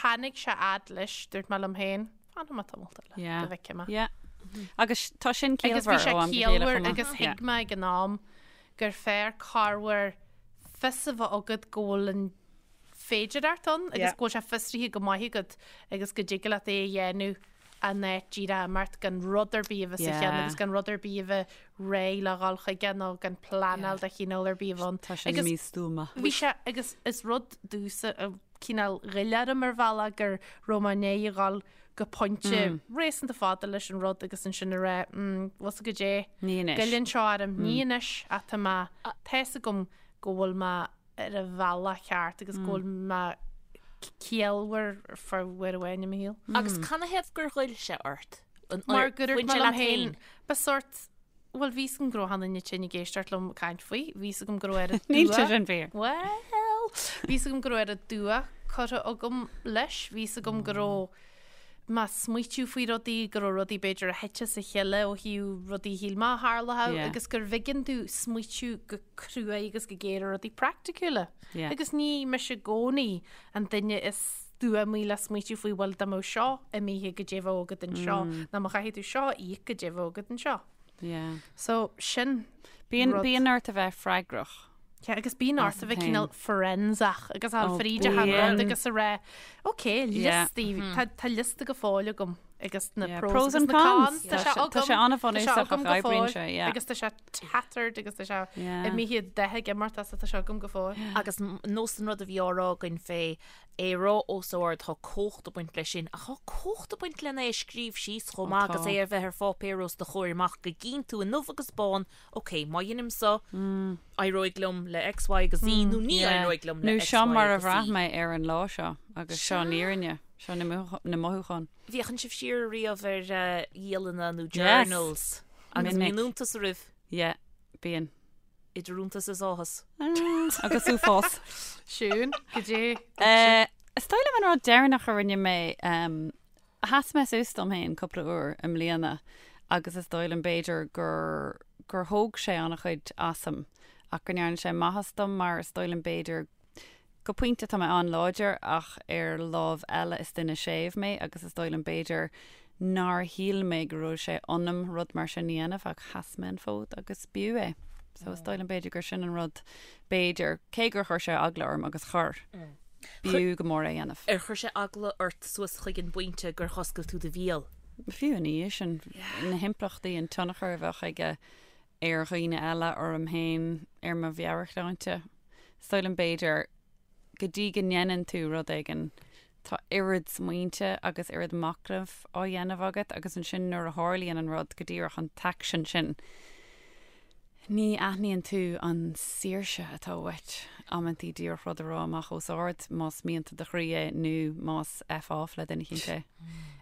S2: tháinig sé fhad leis, dúirt mé liom féin, fanfaidh mé tamalt eile,
S3: Yeah.
S2: go bhfeicfidh mé.
S3: Yeah. Agus tá sin
S2: Agus bhí
S3: ciallmhar
S2: sé
S3: ó am go chéile
S2: ciallmhar
S3: chomh maith.
S2: agus
S3: Yeah.
S2: thuig mé ag an am gur fearr corruair fios a bheith agat go bhfuil an féidireacht ann agus
S4: Yeah.
S2: go bhfuil sé fiosraithe go maith agat agus go dtig leat é a dhéanamh an áit díreach imeacht gan rud ar bith a bheith sa cheann
S3: Yeah.
S2: agus gan rud ar bith a bheith réidh le dhul chuige nó gan pleanáil de chineál ar bith a bheith ann.
S3: Tá sin
S2: Agus
S3: místuama.
S2: Bhí sé agus is rud domhsa a cineál ghoill orm ar bhealach gur raibh mé i ndiaidh a dhul go pointe réasúnta fada leis an rud agus ansin a rá mm, bhfuil fhios agat goidé.
S3: Ní anois.
S2: Goilleann seo orm, ní anois ach tá mé, tá fhios agam go bhfuil mé ar an bhealach ceart agus go bhfuil mé ciallmhar for uair amháin i mo shaol.
S4: Agus canathaobh gur ghoill sé ort? An-
S2: Mar gur
S4: bhain
S2: dhúirt mé
S4: sé
S2: liom
S4: leat
S2: féin,
S4: féin?
S2: ba sort, bhuel bhí fhios agam go raibh achan duine tinn ag éisteacht liom ag caint faoi, bhí fhios agam go raibh oiread
S3: Níl
S2: dua.
S3: sé sin fíor.
S2: Well, bhí fhios agam go raibh oiread dua curtha agam leis, bhí fhios agam go raibh mé ag smaoitiú faoi rudaí, go raibh rudaí b'fhéidir a thit as a chéile ó thaobh rudaí a shíl mé a tharlódh
S3: Yeah.
S2: agus gur bh'éigean domh smaoitiú go cruaidh agus go géar ar rudaí praiticiúla.
S3: Yeah.
S2: Agus ní mise i gcónaí an duine is stuamaí le smaoitiú faoi bhuel dá mbeadh seo imithe goidé a bheadh agat anseo nó má chaithfidh tú seo a íoc goidé a bheadh agat anseo.
S3: Yeah.
S2: So sin
S3: Bíonn
S2: rud.
S3: bíonn ort a bheith freagrach.
S2: Yeah, agus bíonn ort a bheith
S3: féin.
S2: cineál forensach agus a
S3: Oh,
S2: fríd achan
S3: bíonn.
S2: rud agus a rá ok
S3: Yeah.
S2: liostaí tá tá liosta go fóill agam agus na
S3: Yeah,
S2: pros,
S3: pros
S2: agus
S3: and
S2: na
S3: cons.
S2: cons. Tá
S3: Tá
S2: sé
S3: sé- tá
S2: agam
S3: sé an-bhunúsach
S2: tá sé agam
S3: ach
S2: go
S3: oibríonn
S2: fóill,
S3: sé, yeah.
S2: agus tá sé tattered agus tá sé
S3: Yeah.
S2: imithe de ag imeacht as tá sé agam go fóill.
S4: Agus nós an rud a bhí á rá againn fé é a rá os ard tá cumhacht ag baint leis sin, ach tá cumhacht ag baint lena é a scríobh síos chomh maith agus
S3: tá.
S4: é a bheith ar pháipéar os do chomhair amach go gcíonn tú i ndubh agus bán, ok, má dheinim so, éireoidh liom le X, Y agus Z nó ní
S3: Yeah.
S4: éireoidh liom le
S3: Nó
S4: X,
S3: seo
S4: Y
S3: mar a
S4: agus
S3: bhraith
S4: Z.
S3: mé ar an lá seo agus seo an fhírinne, seo na mothúcháin.
S4: Bhféachann sibh siar riamh ar dhialanna nó
S3: Yes.
S4: journals agus
S3: Minic.
S4: bíonn iontas oraibh.
S3: Yeah, bíonn.
S4: Idir iontas is áthas.
S3: Agus uafás.
S2: Siún, goidé.
S3: Is dóigh liom an rud deireanach a rinne mé, sheas mé suas dom féin cúpla uair i mbliana agus is dóigh liom b'fhéidir gur gur thóg sé an-chuid asam ach go ndearna sé maitheas dom mar is dóigh liom b'fhéidir Go pointe tá mé an-láidir ach ar lámh eile is duine séimh mé agus is dóigh liom b'fhéidir nár shíl mé go raibh sé ionam rud mar sin a dhéanamh ach sheas mé an fód agus b'fhiú é. So is dóigh liom b'fhéidir gur sin an rud b'fhéidir, cé gur chuir sé eagla orm agus chuir, b'fhiú go mór é a dhéanamh.
S4: Ar chuir sé eagla ort suas chuig an bpointe gur dh'oscail tú do bhéal?
S3: Fiú ina dhiaidh sin, na himpleachtaí, an tionchar a bheadh aige ar dhaoine eile, orm féin, ar mo mheabhairshláinte. Is dóigh liom b'fhéidir, go dtí go ndéanann tú rud éigin, tá oiread smaointe agus oiread machnaimh á dhéanamh agat agus ansin nuair a tharlaíonn an rud, go díreach an t-aicsean sin, ní aithníonn tú an saoirse atá uait amantaí díreach rud a rá amach os ard, más mianta do chroí é nó más F off le duine eicínt é.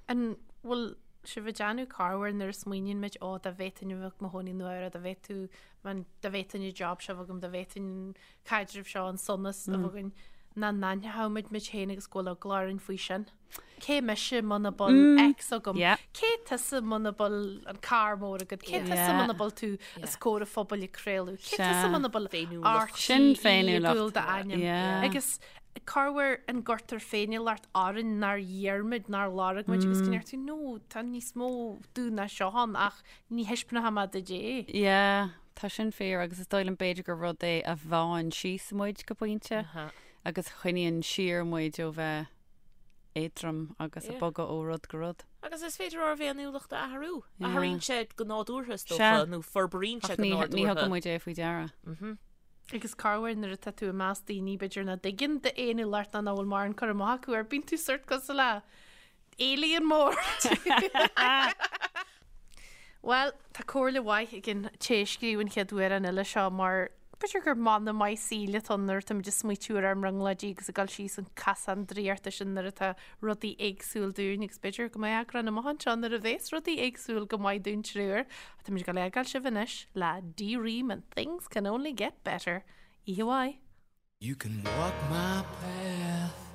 S2: An bhfuil sibh ag déanamh corruair nuair a smaoiníonn muid, ó dá bhféadfainn a bheith i mo chónaí i Nua-Eabhrac, dá bhféadfadh Man, dá bhféadfainn an job seo a bheith agam, dá bhféadfainn an caidreamh seo, an sonas a bheith againn, nach n-aithneodh muid muid féin agus go bhfuil eagla orainn faoi sin. Cé mise muna bhfuil X agam?
S3: Yeah.
S2: Cé tusa muna bhfuil an carr mór agat? Cé tusa
S3: Yeah.
S2: muna bhfuil tú os comhair an phobail ag craoladh? Cé
S3: Sea.
S2: tusa muna bhfuil
S4: Féiniúlacht.
S3: Sin
S2: RTÉ ag
S3: féiniúlacht.
S2: gabháil d'ainm?
S3: Yeah.
S2: Agus corruair an gcuirtear féiniúlacht orainn nár iarr muid, nár lorg muid agus go ndeir tú, no, tá níos mó domh ná seo ann ach Ní thaispeánfaidh mé duit é.
S3: Yeah, tá sin fíor agus is dóigh liom b'fhéidir gur rud é a bhánn síos muid go pointe agus a choinníonn siar muid ó bheith éadrom agus ag bogadh ó rud go rud.
S4: Agus is féidir ár bhféiniúlacht a athrú.
S3: Yeah.
S4: Athraíonn sé go nádúrtha is
S3: Sea.
S4: dócha, nó forbraíonn sé
S3: Ach
S4: go
S3: ní, ní
S4: nádúrtha.
S3: thugann muid é faoi deara.
S2: Agus corruair nuair atá tú i measc daoine b'fhéidir nach dtuigeann d'fhéiniúlacht ná nach bhfuil mórán cur amach acu air, bíonn tú sórt cosúil le alien mór. Bhuel, tá comhairle mhaith ag an té a scríobh an chéad amhrán eile seo mar b'fhéidir gur mana maith saoil atá ann nuair atá muid ag smaoitiú ar ár mbrionglóidí agus ag dul síos an casán draíochta sin nuair atá rudaí éagsúil dúinn agus b'fhéidir go mbeidh eagrán amach anseo nuair a bhéas rudaí éagsúil go maith dúinn triúr. Ach tá muid ag dul a fhágáil sibh anois le D-Ream and Things Can Only Get Better. Oíche mhaith!
S5: You can walk my path.